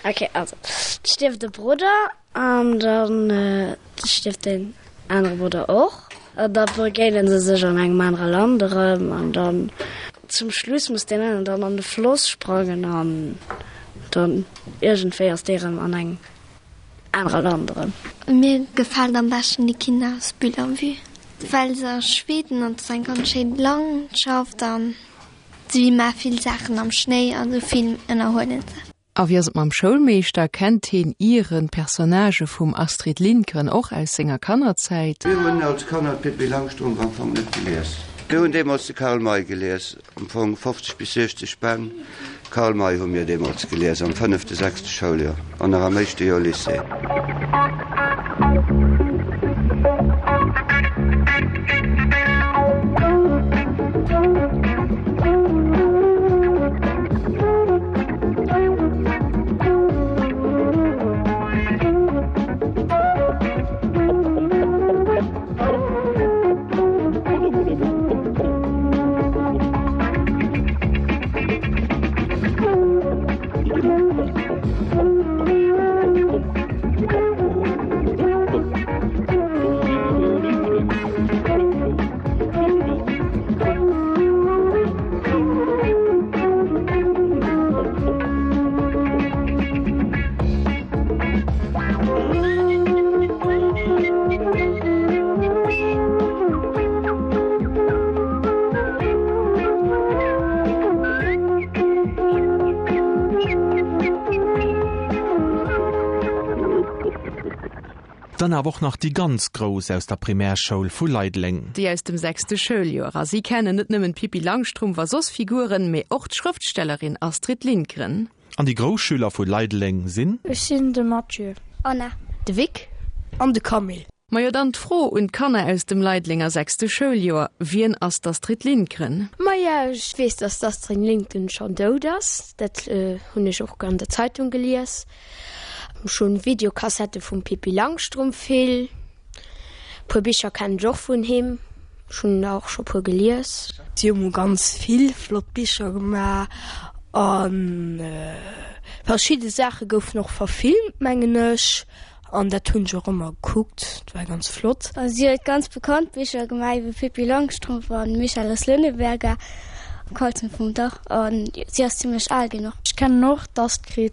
ok also et stierft e Brudder an dann stierft deen anere Brudder och an da begéinen se sech an engem anere Land erëm an dann zum Schluss muss deen einen dann an de Floss sprangen an dann iergendwéi ass dee erëm an engem anere Land erëm. Mir gefält am beschten Die Kinder aus Bullerbü, well se a Schweden an et ass eng ganz schéin Landschaft an si maache vill Saachen am Schnéi an esou vill ënnerhuelen se. A wéi ass et mam Schoulmeeschter? Kennt heen ieren d'Personnagë vum Astrid Lindgren och aus senger Kannerzäit? Mir hunn als Kanner d'Pippi Langstrumpf am Fong net gelies. Mir hunn deemools de Karl May gelies, am Fong 50 bis 60 Bänn Karl May hu mir deemools gelies am fënnefte, sechste Schouljoer an nach am éischte Joer Lycée. Dann awer och nach déi ganz Grouss aus der Primärschoul vu Leideleng. Déi aus dem sechste Schouljoer. A si kennen net nëmmen d'Pippi Langstrumpf a soss Figuren, mee och d'Schrëftstellerin Astrid Lindgren. An déi grouss Schüler vu Leideleng sinn. Ech sinn de Mathieu. Anna. De Vic. An de Camille. Majo dann d'Fro un d'Kanner aus dem Leidelenger sechste Schouljoer, Wien ass d'Astrid Lindgren? Maja, ech weess, dass d'Astrid Lindgren schonn dout ass. Dat hunn ech och an der Zeitung gelies. Ech hunn Videokassette vum Pippi Langstrumpf vill. Puer Bicher kennen ech och vun him, ech hunn der och scho puer gelies. Si hu ganz vill flott Bicher gemaach a verschidde Saache goufen och verfilmt, mengen ech, an dat hunn ech och ëmmer gekuckt, dat war ganz flott. Si huet ganz bekannt Bicher gemaach iwwer Pippi Langstrumpf a Michael aus Lönneberga, Karlsson vom Dach, a si ass zimmlech al ginn och. Ech kennen och d'Astrid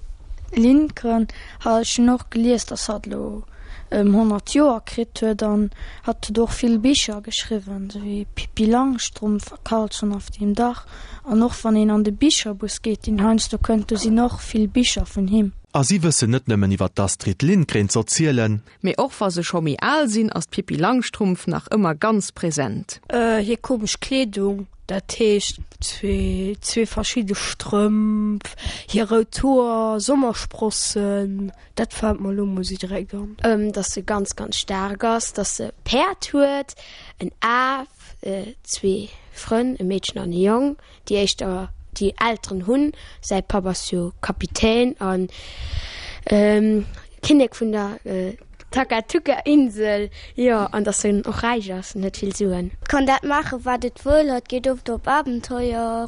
Lindgren, ech hunn och gelies, dass hatt elo ëm 100 Joer kritt huet an hatt huet och vill Bicher geschriwwen, sou wéi Pippi Langstrumpf a Karlsson auf dem Dach. An och wann een an de Bicherbus geet, deen heiansdo kënnt, do sinn och vill Bicher vun him. A si wëssen net nëmmen iwwer d'Astrid Lindgren z'erzielen. Mee och wa se scho méi al sinn, ass d'Pippi Langstrumpf nach ëmmer ganz present. Hir komesch Kleedung, dat heescht zwee verschidde Strëmp, hir rout Hoer, Sommersprossen. Dat fällt mer elo mol sou direkt an. Dass se ganz ganz staark ass, dass se e Päerd huet, en Af, zwee Frënn, e Meedchen an e Jong, déi éischter déi Elteren hunn. Säi Papp ass jo Kapitän a Kinnek vun der Takatuka-Insel, jo, an dass en och räich ass en huet vill Suen. Kann dat maachen, wat et wëll. Hatt geet oft op Abenteuer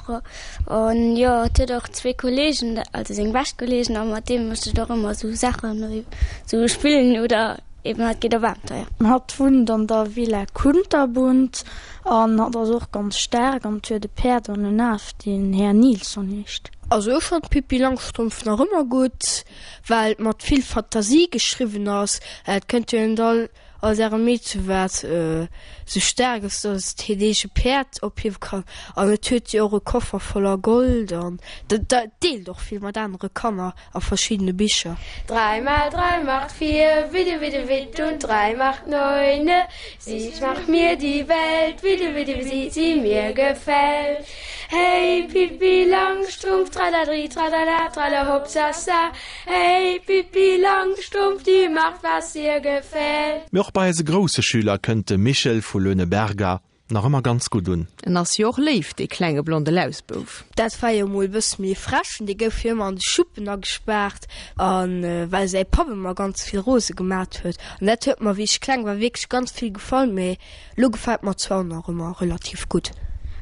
an jo, hatt huet och zwee Kollegen, also seng bescht Kollegen, a mat deem mécht et och ëmmer sou Saachen, sou spillen oder eben hatt geet op Abenteuer. Hatt wunnt an der Villa Kunterbunt an hatt ass och ganz staark an huet e Päerd an en Af, deen Här Nilsson heescht. Also ech fannt d'Pippi Langstrumpf nach ëmmer gutt. Well et mat vill Fantasie geschriwwen ass. Et kënnt jo net all als ärem Meedche wat sou staark ass, datt et hiert eege Päerd ophiewe kann. An et huet jo och e Koffer voller Gold an dat deelt och vill mat anere Kanner a verschiddene Bicher. Drei mal drei macht vier, widde widde witt und drei macht neune. Sie macht mir die Welt, widde widde wie sie mir gefällt. Hey Pippi Langstrumpf, tralladri, tralala, trallahopsasa. Hey Pippi Langstrumpf, die macht was ihr gefällt. Mee och bei eise grousse Schüler kënnt de Michel vu Löhneberger nach ëmmer ganz gutt un. En ass jo och léif, dee klenge blonde Lausbouf. Dat war jo mol e bësse méi frech, dee gouf jo ëmmer an de Schuppen agespaart, a well säi Papp ëmmer ganz vill rose gemat huet. An dat huet mer, wéi ech kleng war, wierklech ganz vill gefall, mee Lo gefällt mer zwar nach ëmmer relativ gutt.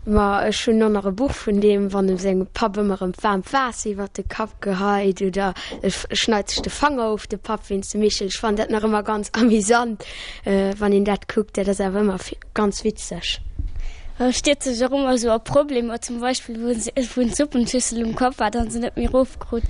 Ma ech hunn och nach e Buch vun deem, wann em sengem Papp ëmmer erëm waarmt Waasser iwwert de Kapp geheit oder e schneit sech de Fanger of, de Papp wéinst dem Michel. Ech fannen dat nach ëmmer ganz amüsant, wann een dat kuckt. Dat ass awer ëmmer ganz witzeg. E stierzt sech och ëmmer esou a Problemer, zum Beispill wou en d'Suppenschüssel um Kapp hat an se net méi erofkrut.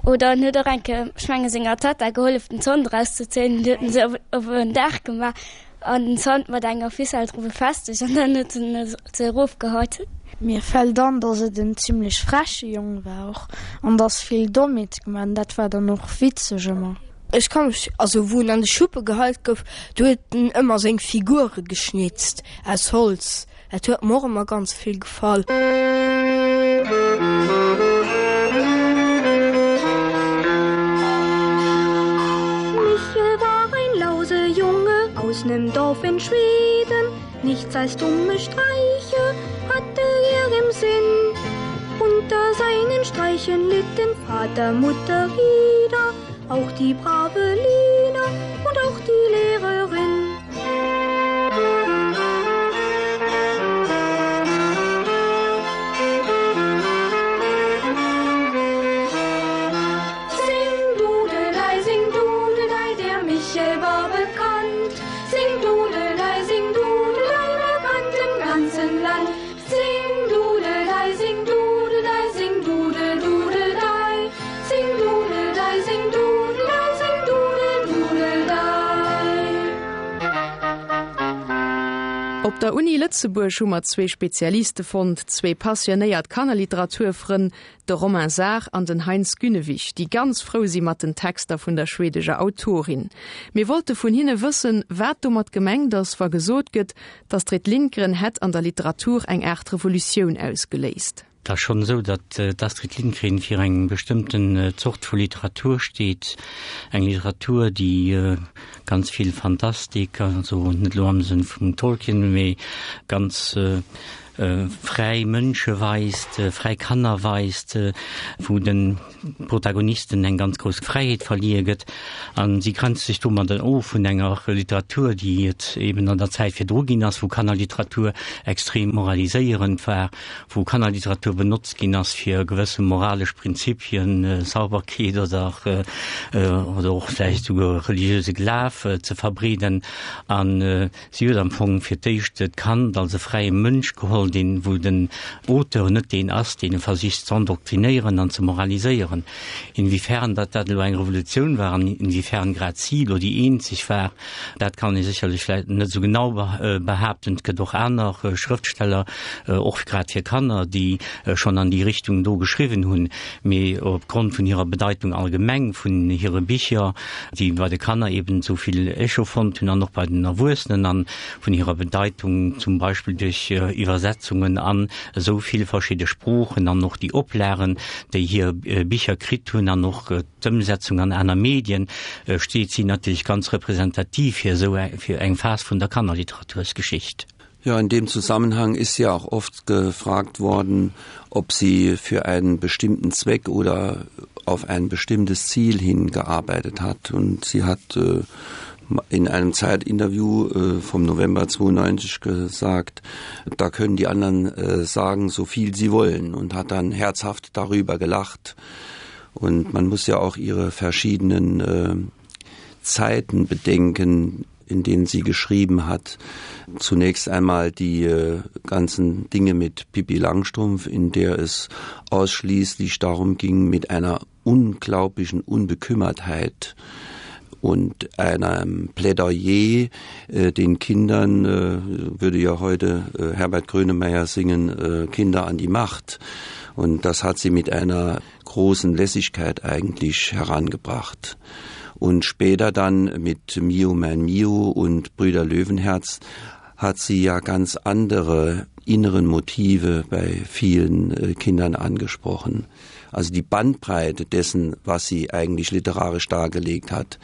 Oder en huet och eng Kéier, ech menge senger Tatta gehollef den Zant erauszezéien, huet en se op en Daach gemaach. An den Zant mat enger Ficelle dru befestegt an dann huet en se erofgeheit. Mir fällt an, dass et en zimlech freche Jong war och an dass vill Dommheete gemaach an dat war dann och witzeg ëmmer. Ech ka mech, also wou en an de Schuppe geheit gouf, do huet en ëmmer seng Figure geschnitzt aus Holz. Dat huet mer och ëmmer ganz vill gefall. Michel war ein Lausejunge aus nem Dorf in Schweden, Nichts als dumme Streiche hatte er im Sinn. Unter seinen Streichen litten Vater, Mutter, Ida, auch die brave Lina und auch die Lehrerin. Op der Uni Lëtzebuerg hu mer zwee Spezialiste fonnt, zwee passionéiert Kannerliteraturfrënn, de Romain Saar an den Heinz Günnewig, déi ganz frou si mat den Texter vun der schwedeger Autorin. Mir wollte vun hinne wëssen, wat domat gemengt ass, wa gesot gëtt, D'Astrid Lindgren hätt an der Literatur eng Aart Revolutioun ausgeléist. Et ass schonn esou, datt d'Astrid Lindgren fir eng bestëmmten Zort vu Literatur steet, eng Literatur, déi ganz vill Fantastik, also net elo am Sënn vum Tolkien, mee ganz fräi Mënsche weist, fräi Kanner weist, wou de Protagonisten eng ganz grouss Fräiheet verliee gëtt. A si grenzt sech domadder of vun enger Literatur, déi et eben an der Zäit virdru ginn ass, wou Kannerliteratur extrem moraliséierend war, wou Kannerliteratur benotzt ginn ass, fir gewësse moralesch Prinzipien, Sauberkeet oder oder och vläicht souguer religiöse Glaf ze verbreeden. An Si huet am Fong fir d'éischt d'Kand als e fräie Mënsch geholl, deen, wou den Auteur net deen ass, deen e versicht z'endoktrinéieren an ze moraliséieren. Inwiefern datt dat elo eng Revolutioun war an inwiefern grad si elo déi eenzeg war, dat kann ee sécherlech vläicht net esou genau behaapten. Et gëtt och aner Schrëftsteller, och grad fir Kanner, déi schonn an déi Richtung do geschriwwen hunn, mee opgrond vun hirer Bedeitung allgemeng, vun hire Bicher, déi bei de Kanner eben esou vill Echo fonnt hunn an och bei den Erwuessenen an vun hirer Bedeitung zum Beispill duerch Iwwersetzungen an esou vill verschidde Sproochen an och déi Oplagen, déi hir Bicher kritt hunn an och d'Ëmsetzung an aner Medien, steet si natierlech ganz representativ fir esou fir eng Phas vun der Kannerliteratursgeschicht. Ja, in dem Zusammenhang ist ja auch oft gefragt worden, ob sie für einen bestimmten Zweck oder auf ein bestimmtes Ziel hingearbeitet hat. Und sie hat äh, in einem Zeitinterview äh, vom November 92 gesagt, da können die anderen äh, sagen, so viel sie wollen und hat dann herzhaft darüber gelacht. Und man muss ja auch ihre verschiedenen äh, Zeiten bedenken, in denen sie geschrieben hat. Zunächst einmal die äh, ganzen Dinge mit Pippi Langstrumpf, in der es ausschließlich darum ging, mit einer unglaublichen Unbekümmertheit und einem Plädoyer äh, den Kindern äh, würde ja heute äh, Herbert Grönemeyer singen äh, Kinder an die Macht. Und das hat sie mit einer großen Lässigkeit eigentlich herangebracht. Und später dann mit Mio mein Mio und Brüder Löwenherz hat sie ja ganz andere inneren Motive bei vielen äh, Kindern angesprochen. Also die Bandbreite dessen, was sie eigentlich literarisch dargelegt hat,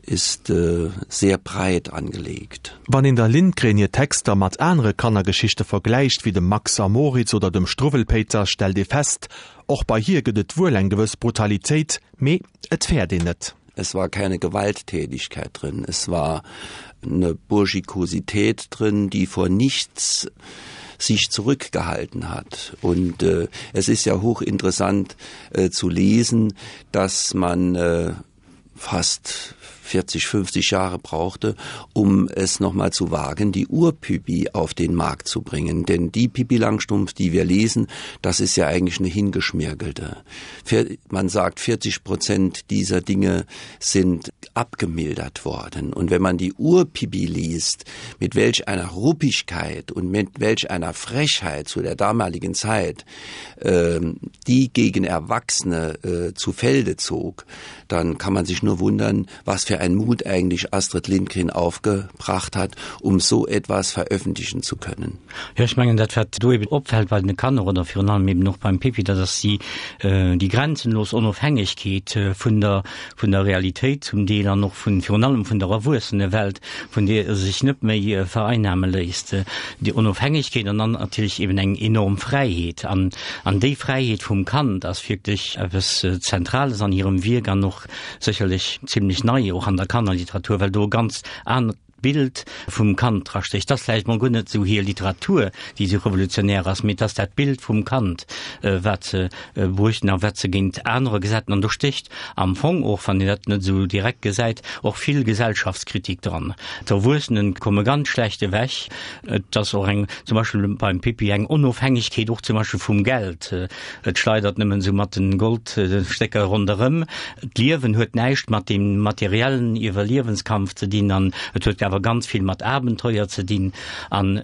ist äh, sehr breit angelegt. Wann een der Lindgren hir Texter mat anere Kannergeschichte vergläicht, wéi dem Max a Moritz oder dem Struwwelpéiter, stellt ee fest, Och bei hir gëtt et wuel eng gewëss Brutalitéit, mee et fäert een net. Es war keine Gewalttätigkeit drin. Es war eine Burschikosität drin, die vor nichts sich zurückgehalten hat. Und äh, es ist ja hochinteressant äh, zu lesen, dass man äh, fast 40, 50 Jahre brauchte, um es noch mal zu wagen, die Urpipi auf den Markt zu bringen. Denn die Pipi Langstumpf, die wir lesen, das ist ja eigentlich eine hingeschmirgelte. Man sagt, 40 Prozent dieser Dinge sind abgemildert worden. Und wenn man die Urpipi liest, mit welch einer Ruppigkeit und mit welch einer Frechheit zu der damaligen Zeit, äh, die gegen Erwachsene äh, zu Felde zog, dann kann man sich nur wundern, was für. für ein Mut eigentlich Astrid Lindgren aufgebracht hat, um so etwas veröffentlichen zu können. Jo, ech mengen dat wat do eben opfält bei den Kanner oder virun allem eben och beim Pippi, dat ass déi déi grenzenlos Onofhängegkeet vun der vun der Realitéit zum Deel an och vun virun allem vun der Erwuessenewelt, vun deer e sech net méi vereinnahme léisst. Déi Onofhängegkeet an dann natierlech eben eng enorm Fräiheet. An an déi Fräiheet vum Kand ass wierklech eppes Zentrales an hirem Wierk an och sécherlech zimlech nei och an der Kannerliteratur, well do e ganz anert Bild vum Kand drastécht. Et ass vläicht mol guer net esou hir Literatur, déi esou revolutionär ass, mee et ass dat Bild vum Kand, wat se bruechten a wat se géint anerer gesäit. An do stécht am Fong och, wann een dat net esou direkt gesäit, och vill Gesellschaftskritik dran. D'Erwuessene komme ganz schlecht ewech. Et ass och eng, zum Beispill beim Pippi, eng Onofhängegkeet och zum Beispill vum Geld. Et schleidert nëmmen esou mat den Goldstécker ronderëm. D'Liewen huet näischt mat dem materiellen Iwwerliewenskampf ze dinn an et huet awer ganz vill mat Abenteuer ze dinn. An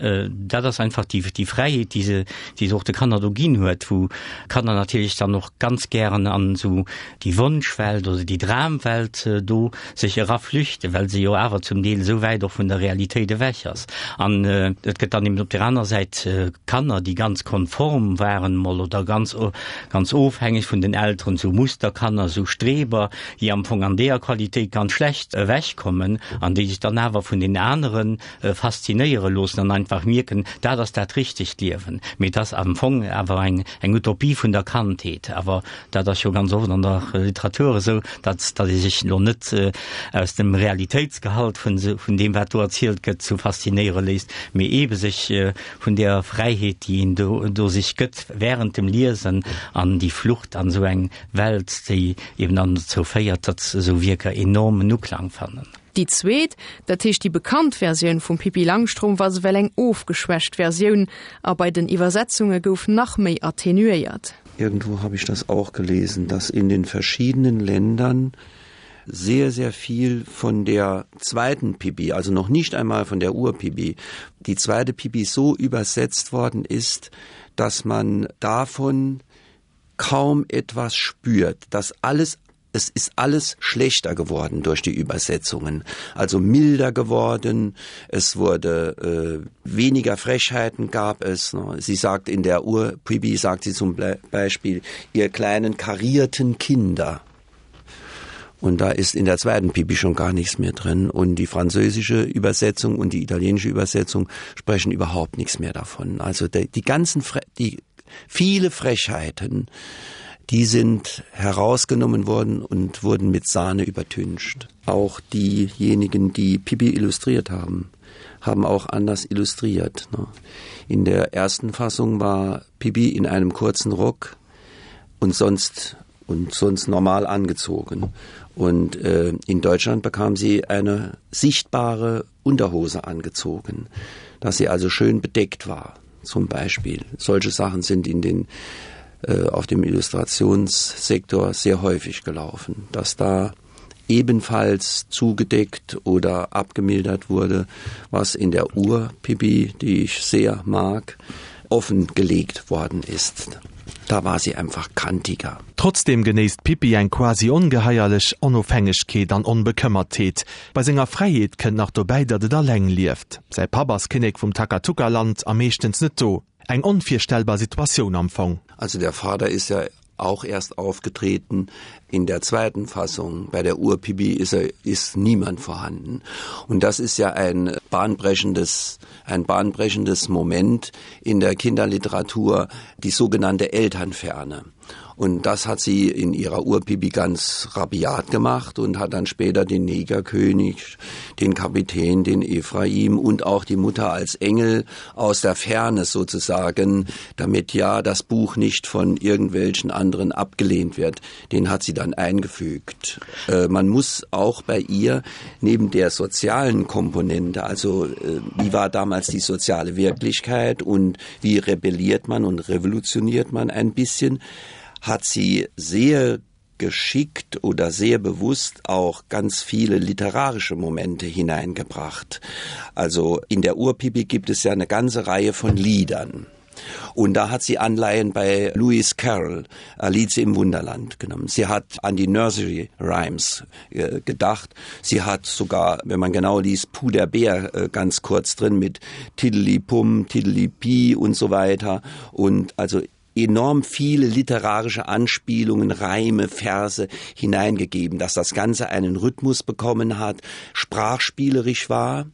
dat ass einfach déi, déi Fräiheet, déi se, déi se och de Kanner do ginn huet, wou Kanner natierlech dann och ganz gären an esou déi Wonschwelt oder déi Dramwelt do sech eraflüchten, well se jo awer zum Deel esou wäit och vun der Realitéit ewech ass. An et gëtt dann eben op der aner Säit Kanner, déi ganz konform waren emol oder ganz, ganz ofhängeg vun den Elteren, esou Musterkanner, esou Streber, déi am Fong an deeër Qualitéit ganz schlecht ewechkommen an déi sech dann awer vun den anere faszinéiere loossen an einfach mierken, dat ass dat richtegt Liewen. Mee et ass am Fong awer eng, eng Utopie vun der Kandheet. Awer Dat ass jo ganz oft an der Literatur esou, datt datt ee sech elo net aus dem Realitéitsgehalt vun vun deem, wat do erzielt gëtt, zu faszinéiere léisst, mee eebe sech vun där Fräiheet, déi een do do sech gëtt während dem Liesen an déi Flucht an esou eng Welt, déi eeben dann dozou féiert, datt esou Wierker enormen Uklang fannen. Déi zweet, dat heescht déi bekannt Versioun vum Pippi Langstrumpf ass ewell eng ofgeschwächt Versioun a bei den Iwwersetzunge gouf nach méi attenuéiert. Irgendwo habe ich das auch gelesen, dass in den verschiedenen Ländern sehr, sehr viel von der zweiten Pipi, also noch nicht einmal von der Urpipi, die zweite Pipi so übersetzt worden ist, dass man davon kaum etwas spürt, dass alles es ist alles schlechter geworden durch die Übersetzungen, also milder geworden, es wurde äh, weniger Frechheiten gab es. Ne? Sie sagt in der Uhr Pibi sagt sie zum Beispiel ihr kleinen karierten Kinder. Und da ist in der zweiten Pipi schon gar nichts mehr drin. Und die französische Übersetzung und die italienische Übersetzung sprechen überhaupt nichts mehr davon. Also die, die ganzen Fre die viele Frechheiten, die sind herausgenommen worden und wurden mit Sahne übertüncht. Auch diejenigen, die Pipi illustriert haben, haben auch anders illustriert. Ne? In der ersten Fassung war Pipi in einem kurzen Rock und sonst und sonst normal angezogen. Und äh, in Deutschland bekam sie eine sichtbare Unterhose angezogen, dass sie also schön bedeckt war zum Beispiel. Solche Sachen sind in den äh, auf dem Illustrationssektor sehr häufig gelaufen, dass da ebenfalls zugedeckt oder abgemildert wurde, was in der Uhr Pipi, die ich sehr mag, offengelegt worden ist. Da war sie einfach kantiger. Trotzdeem genéisst d'Pippi eng quasi ongeheierlech Onofhängegkeet an Onbekëmmertheet. Bei senger Fräiheet kënnt nach dobäi, datt et alleng lieft. Säi Papp ass Kinnek vum Takatuka-Land a meeschtens net do. Eng onvirstellbar Situatioun am Fong. Also der Vater ist ja auch erst aufgetreten in der zweiten Fassung. Bei der Urpipi ist er ist niemand vorhanden. Und das ist ja ein bahnbrechendes, ein bahnbrechendes Moment in der Kinderliteratur, die sogenannte Elternferne. Und das hat sie in ihrer Urpipi ganz rabiat gemacht und hat dann später den Negerkönig, den Kapitän, den Ephraim und auch die Mutter als Engel aus der Ferne sozusagen, damit ja das Buch nicht von irgendwelchen anderen abgelehnt wird. Den hat sie dann eingefügt. Äh, man muss auch bei ihr neben der sozialen Komponente, also äh, wie war damals die soziale Wirklichkeit und wie rebelliert man und revolutioniert man ein bisschen, hat sie sehr geschickt oder sehr bewusst auch ganz viele literarische Momente hineingebracht. Also in der Urpipi gibt es ja eine ganze Reihe von Liedern. Und da hat sie Anleihen bei Lewis Carroll, Alice im Wunderland genommen. Sie hat an die Nursery Rhymes äh, gedacht. Sie hat sogar, wenn man genau liest, Puder Bär äh, ganz kurz drin mit Tiddly Pum, Tiddly Pi und so weiter. Und also enorm viele literarische Anspielungen, Reime, Verse hineingegeben, dass das Ganze einen Rhythmus bekommen hat, sprachspielerisch war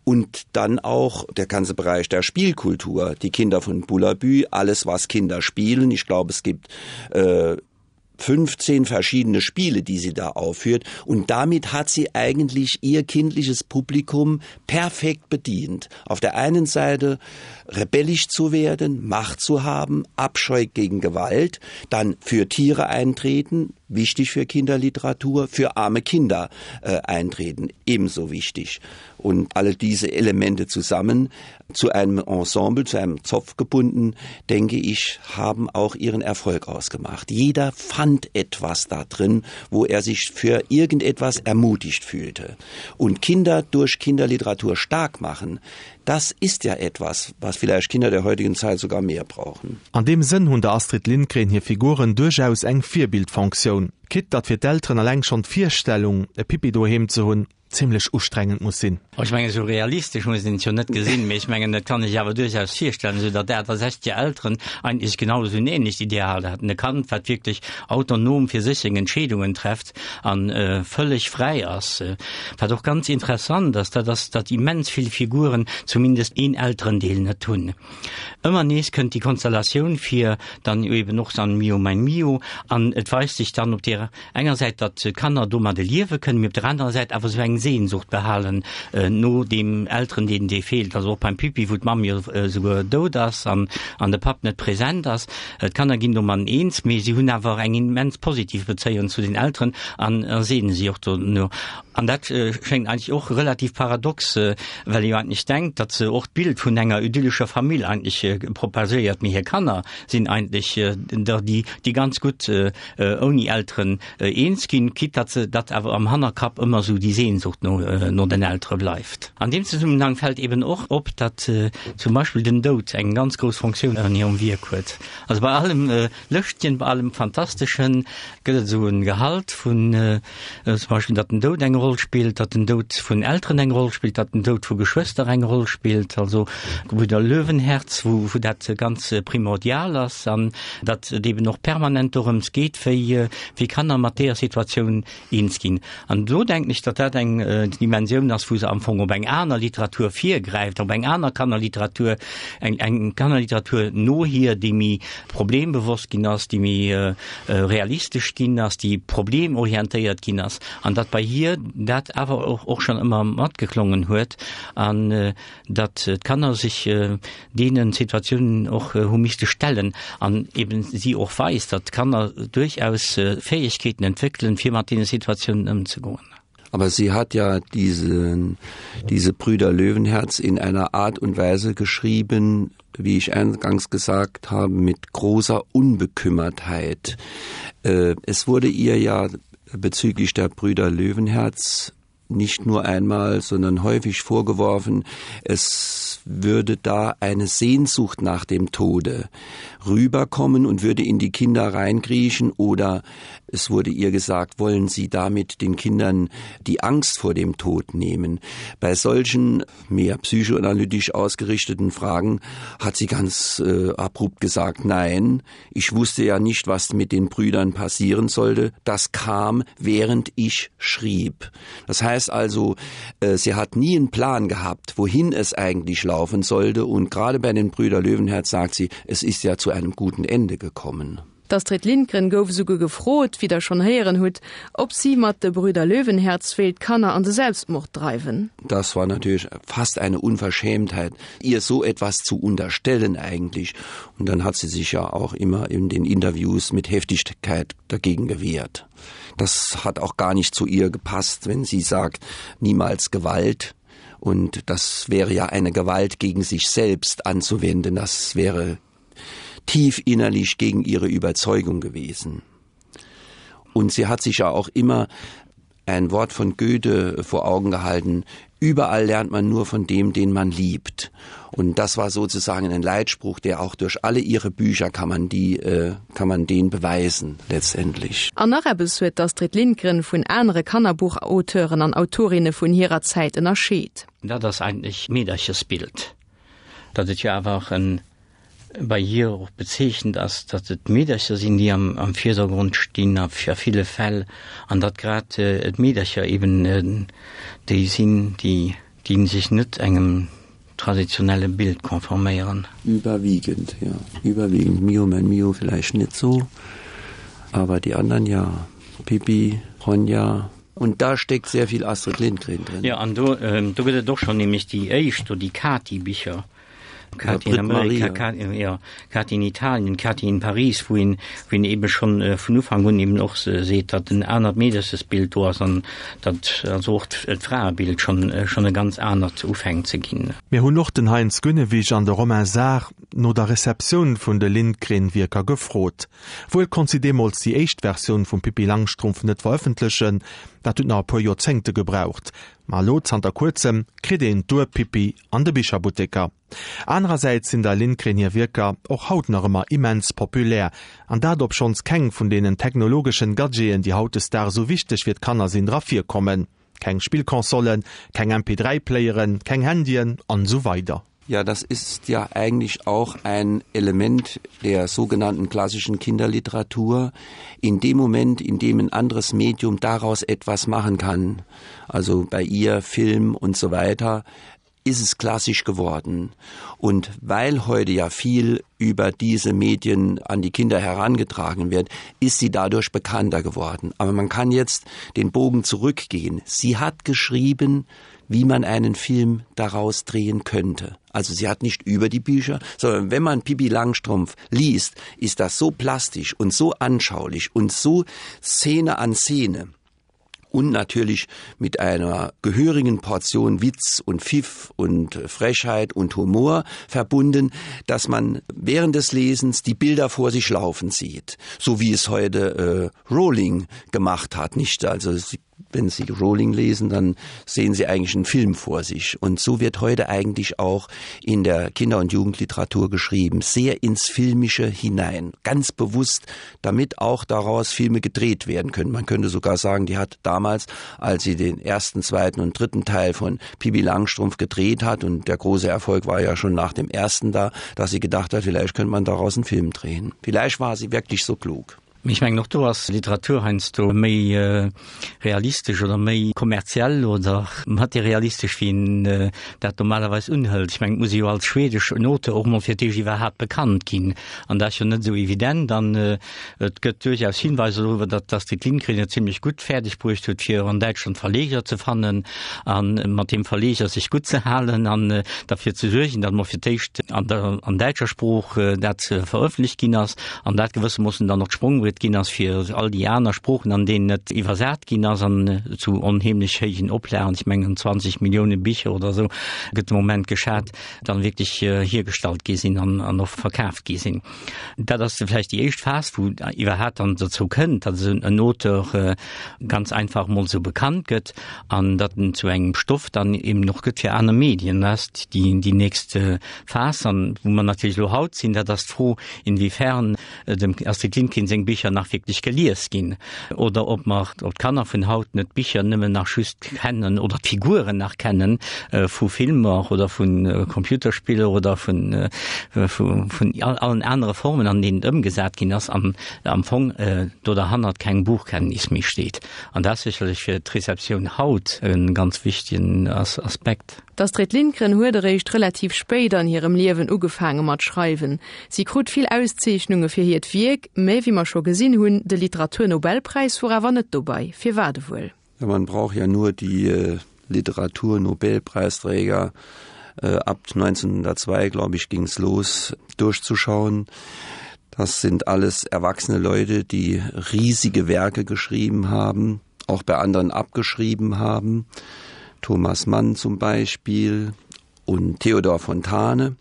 und dann auch der ganze Bereich der Spielkultur, die Kinder von Bullabü, alles was Kinder spielen. Ich glaube, es gibt äh, 15 verschiedene Spiele, die sie da aufführt und damit hat sie eigentlich ihr kindliches Publikum perfekt bedient. Auf der einen Seite rebellisch zu werden, Macht zu haben, Abscheu gegen Gewalt, dann für Tiere eintreten, wichtig für Kinderliteratur, für arme Kinder äh, eintreten, ebenso wichtig. Und alle diese Elemente zusammen zu einem Ensemble, zu einem Zopf gebunden, denke ich, haben auch ihren Erfolg ausgemacht. Jeder fand etwas da drin, wo er sich für irgendetwas ermutigt fühlte. Und Kinder durch Kinderliteratur stark machen, das ist ja etwas, was vielleicht Kinder der heutigen Zeit sogar mehr brauchen. An deem Sënn hunn der Astrid Lindgren hir Figuren duerchaus eng Virbildfonktioun, quitte datt fir d'Elteren eleng schonn d'Virstellung, e Pippi doheem ze hunn, zimlech ustrengend muss sinn. Ech mengen, esou realistesch muss een et jo net gesinn, mee ech mengen, et kann ee sech awer duerchaus virstellen, esou datt 68 Elteren eigentlech genau esou en ähnlecht Ideal haten, e Kand, wat wierklech autonom fir sech seng Entscheedungen trefft a vëlleg fräi ass. Wat och ganz interessant ass, dat ass, datt immens vill Figuren zumindest een Elterendeel net hunn. Ëmmer nees kënnt déi Konstellatioun vir, dann eben och an Mio mein Mio, an et weist sech dann op deer enger Säit, datt d'Kanner domadde liewe kënnen, mee op der anerer Säit awer esou eng Sehnsucht behalen no deem Elterendeel, dee feelt. Also och beim Pippi, wou d'Mamm jo esouguer dout ass an de Papp net present ass. D'Kanner ginn domadden eens, mee si hunn awer eng immens positiv Bezéiung zu den Elteren an sehne si och dono. An dat schéngt eigentlech och relativ paradox, well ee jo eigentlech denkt, datt se och d'Bild vun enger idyllescher Famill eigentlech propagéiert, mee hir Kanner sinn eigentlech der, déi, déi ganz gutt ouni Elteren eens ginn, quitte datt se, datt awer am Hannerkapp ëmmer esou déi Sehnsucht no, no den Eltere bleift. An deem Zesummenhang fält eben och op, datt zum Beispill den Doud eng ganz grouss Fonctioun an hirem Wierk huet. Also bei allem Lëschtgen, bei allem Fantasteschen gëtt et esou e Gehalt vun, zum Beispill datt den Doud eng Roll spillt, datt den Doud vun Elteren eng Roll spillt, datt den Doud vu Geschwëster eng Roll spillt, also Gebrüder Löwenherz, wou wou dat ganz primordial ass an datt et eben och permanent dorëms geet, wéi wéi Kanner mat deeër Situatioun eens ginn. An do denken ech, datt dat eng Dimensioun ass, wou se am Fong op eng aner Literatur virgräift, op eng aner Kannerliteratur, eng eng Kannerliteratur no hir, déi méi problembewosst ginn ass, déi méi realistesch ginn ass, déi problemorientéiert ginn ass, an datt bei hir dat awer och och schonn ëmmer matgeklongen huet an datt d'Kanner sech deene Situatiounen och hu misste stellen an eben si och weist, datt d'Kanner duerchaus Fäegkeeten entwéckelen, fir mat deene Situatiounen ëmzegoen. Aber sie hat ja diesen, diese Brüder Löwenherz in einer Art und Weise geschrieben, wie ich eingangs gesagt habe, mit großer Unbekümmertheit. Äh, es wurde ihr ja bezüglich der Brüder Löwenherz nicht nur einmal, sondern häufig vorgeworfen, es würde da eine Sehnsucht nach dem Tode rüberkommen und würde in die Kinder reinkriechen oder es wurde ihr gesagt, wollen Sie damit den Kindern die Angst vor dem Tod nehmen. Bei solchen mehr psychoanalytisch ausgerichteten Fragen hat sie ganz äh, abrupt gesagt, nein, ich wusste ja nicht, was mit den Brüdern passieren sollte. Das kam, während ich schrieb. Das heißt also, äh, sie hat nie einen Plan gehabt, wohin es eigentlich laufen sollte und gerade bei den Brüder Löwenherz sagt sie, es ist ja zu einem guten Ende gekommen. D'Astrid Lindgren gouf esouguer gefrot, wéi der schonn héieren hutt, ob si mat De Brüder Löwenherz wéilt d'Kanner an de Selbstmord dreiwen. Das war natürlich fast eine Unverschämtheit, ihr so etwas zu unterstellen eigentlich. Und dann hat sie sich ja auch immer in den Interviews mit Heftigkeit dagegen gewehrt. Das hat auch gar nicht zu ihr gepasst, wenn sie sagt, niemals Gewalt. Und das wäre ja eine Gewalt gegen sich selbst anzuwenden. Das wäre tief innerlich gegen ihre Überzeugung gewesen. Und sie hat sich ja auch immer. ein Wort von Goethe vor Augen gehalten: Überall lernt man nur von dem, den man liebt. Und das war sozusagen ein Leitspruch, der auch durch alle ihre Bücher kann man die äh, kann man den beweisen letztendlich. An nach eppes huet d'Astrid Lindgren vun anere Kannerbuchauteuren an Autorinne vun hirer Zäit ënnerscheet. Dat ass eigentlech d'Meederchesbild, dat et jo awer och en bei hir och bezeechent ass, datt et d'Meedercher sinn, déi am am Virdergrond stinn a a ville Fäll, an datt grad d'Meedercher eben déi sinn, déi déi sech net engem traditionelle Bild konforméieren. Überwiegend, ja, überwiegend. Mio, mein Mio vielleicht net so, aber die anderen ja. Pippi, Ronja. Und da steckt sehr viel Astrid Lindgren drin. Jo, an do do gëtt et och schonn nämlech déi éischt do, déi Kati-Bicher. Kati in Amerika, Kati, ja, Kati in Italien, Kati in Paris, wou een, wou een eben schon äh, vun Ufank un eben och seet, datt en anert Meederchesbild do ass an datt also och d'Fraebild schon, äh, schon e ganz anert ufänkt ze ginn. Mir hunn och den Heinz Günnewig an de Romain Saar no der Receptioun vun de Lindgren-Wierker gefrot. Wuel konnt si deemools déi éischt Versioun vum Pippi Langstrumpf net verëffentlechen, dat huet nach e puer Joerzéngte gebraucht. Ma elo, zanter kuerzem, kritt een d'Ur-Pippi an de Bicherbutteker. Anerersäits sinn der Lindgren hir Wierker och haut nach ëmmer immens populär, an dat obschonns keng vun deenen technologeschen Gadgeten, déi hautdesdaags esou wichteg fir d'Kanner sinn, dra virkommen. Keng Spillconsolen, keng MP3-Playeren, keng Handyen an esou weider. Ja, das ist ja eigentlich auch ein Element der sogenannten klassischen Kinderliteratur. In dem Moment, in dem ein anderes Medium daraus etwas machen kann, also bei ihr Film und so weiter, ist es klassisch geworden. Und weil heute ja viel über diese Medien an die Kinder herangetragen wird, ist sie dadurch bekannter geworden. Aber man kann jetzt den Bogen zurückgehen. Sie hat geschrieben, wie man einen Film daraus drehen könnte. Also sie hat nicht über die Bücher, sondern wenn man Pipi Langstrumpf liest, ist das so plastisch und so anschaulich und so Szene an Szene und natürlich mit einer gehörigen Portion Witz und Pfiff und Frechheit und Humor verbunden, dass man während des Lesens die Bilder vor sich laufen sieht, so wie es heute äh, Rowling gemacht hat nicht also sie wenn Sie Rowling lesen, dann sehen Sie eigentlich einen Film vor sich. Und so wird heute eigentlich auch in der Kinder- und Jugendliteratur geschrieben, sehr ins Filmische hinein, ganz bewusst, damit auch daraus Filme gedreht werden können. Man könnte sogar sagen, die hat damals, als sie den ersten, zweiten und dritten Teil von Pibi Langstrumpf gedreht hat und der große Erfolg war ja schon nach dem ersten da, dass sie gedacht hat, vielleicht könnte man daraus einen Film drehen. Vielleicht war sie wirklich so klug. Mee ech mengen, och do ass Literatur heiansdo méi realistesch oder méi kommerziell oder materialistesch, wéi een dat normalerweis unhëlt. Ech mengen, et muss ee jo als schwedeschen Auteur och mol fir d'éischt iwwerhaapt bekannt ginn. An dat ass jo net esou evident. An et gëtt duerchaus Hinweiser doriwwer, datt d'Astrid Lindgren et zimlech gutt fäerdeg bruecht huet, fir an Däitschland Verleger ze fannen a mat deem Verleger sech gutt ze halen an derfir ze suergen, datt mol fir d'éischt an der an däitscher Sprooch dat verëffentlecht ginn ass. an dat gewëssermoossen dann och d'Sprongbriet ginn ass fir all déi aner Sproochen, an deenen et iwwersat ginn ass an zu onheemlech héijen Oplagen, ech mengen 20 Millioune Bicher oder esou gëtt de Moment geschat, dann wierklech hiergestallt gi sinn an an och verkaaft gi sinn. Dat ass vläicht déi éischt Phas, wou iwwerhaapt dann dozou kënnt, datt esou en Auteur ganz einfach emol esou bekannt gëtt an datt en zu engem Stoff dann eben och gëtt fir aner Medien. Dat ass déi déi nächst Phas. An wou mer natierlech elo haut sinn, dat ass d'Fro, inwiefern dem Astrid Lindgren seng Bicher nach wierklech gelies ginn oder ob mer, ob d'Kanner vun haut net d'Bicher nëmmen nach just kennen oder d'Figuren nach kennen vu Filmer oder vu Computerspiller oder vun vun allen anere Formen, an deenen et ëmgesat ginn ass an am Fong do derhannert keng Buchkenntnis méi steet. An dat ass sécherlech fir d'Receptioun haut e ganz wichtegen Aspekt. D'Astrid Lindgren huet eréischt relativ spéit an hirem Liewen ugefaange mat schreiwen. Si krut vill Auszeechnunge fir hiert Wierk, mä wéi mer scho gesinn hunn, de Literaturnobelpräis wor awer net dobei. Firwat ewuel? Ja, man braucht ja nur die Literaturnobelpreisträger ab 1902, glaube ich, ging's los, durchzuschauen. Das sind alles erwachsene Leute, die riesige Werke geschrieben haben, auch bei anderen abgeschrieben haben. Thomas Mann zum Beispiel und Theodor Fontane.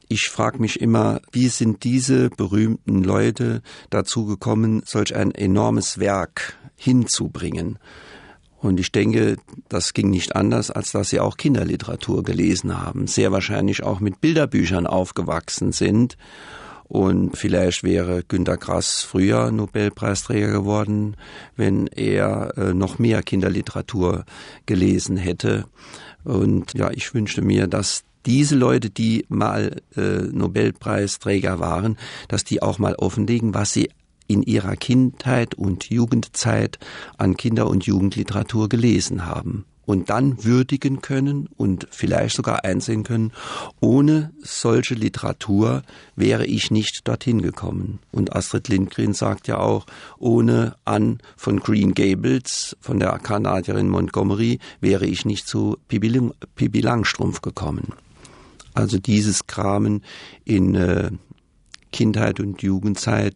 Ich frage mich immer, wie sind diese berühmten Leute dazu gekommen, solch ein enormes Werk hinzubringen? Und ich denke, das ging nicht anders, als dass sie auch Kinderliteratur gelesen haben, sehr wahrscheinlich auch mit Bilderbüchern aufgewachsen sind. Und vielleicht wäre Günter Grass früher Nobelpreisträger geworden, wenn er äh, noch mehr Kinderliteratur gelesen hätte. Und ja, ich wünschte mir, dass diese Leute, die mal äh, Nobelpreisträger waren, dass die auch mal offenlegen, was sie in ihrer Kindheit und Jugendzeit an Kinder- und Jugendliteratur gelesen haben und dann würdigen können und vielleicht sogar einsehen können, ohne solche Literatur wäre ich nicht dorthin gekommen. Und Astrid Lindgren sagt ja auch, ohne Ann von Green Gables von der Kanadierin Montgomery wäre ich nicht zu Pippi, Pippi Langstrumpf gekommen. Also dieses Kramen in äh, Kindheit und Jugendzeit.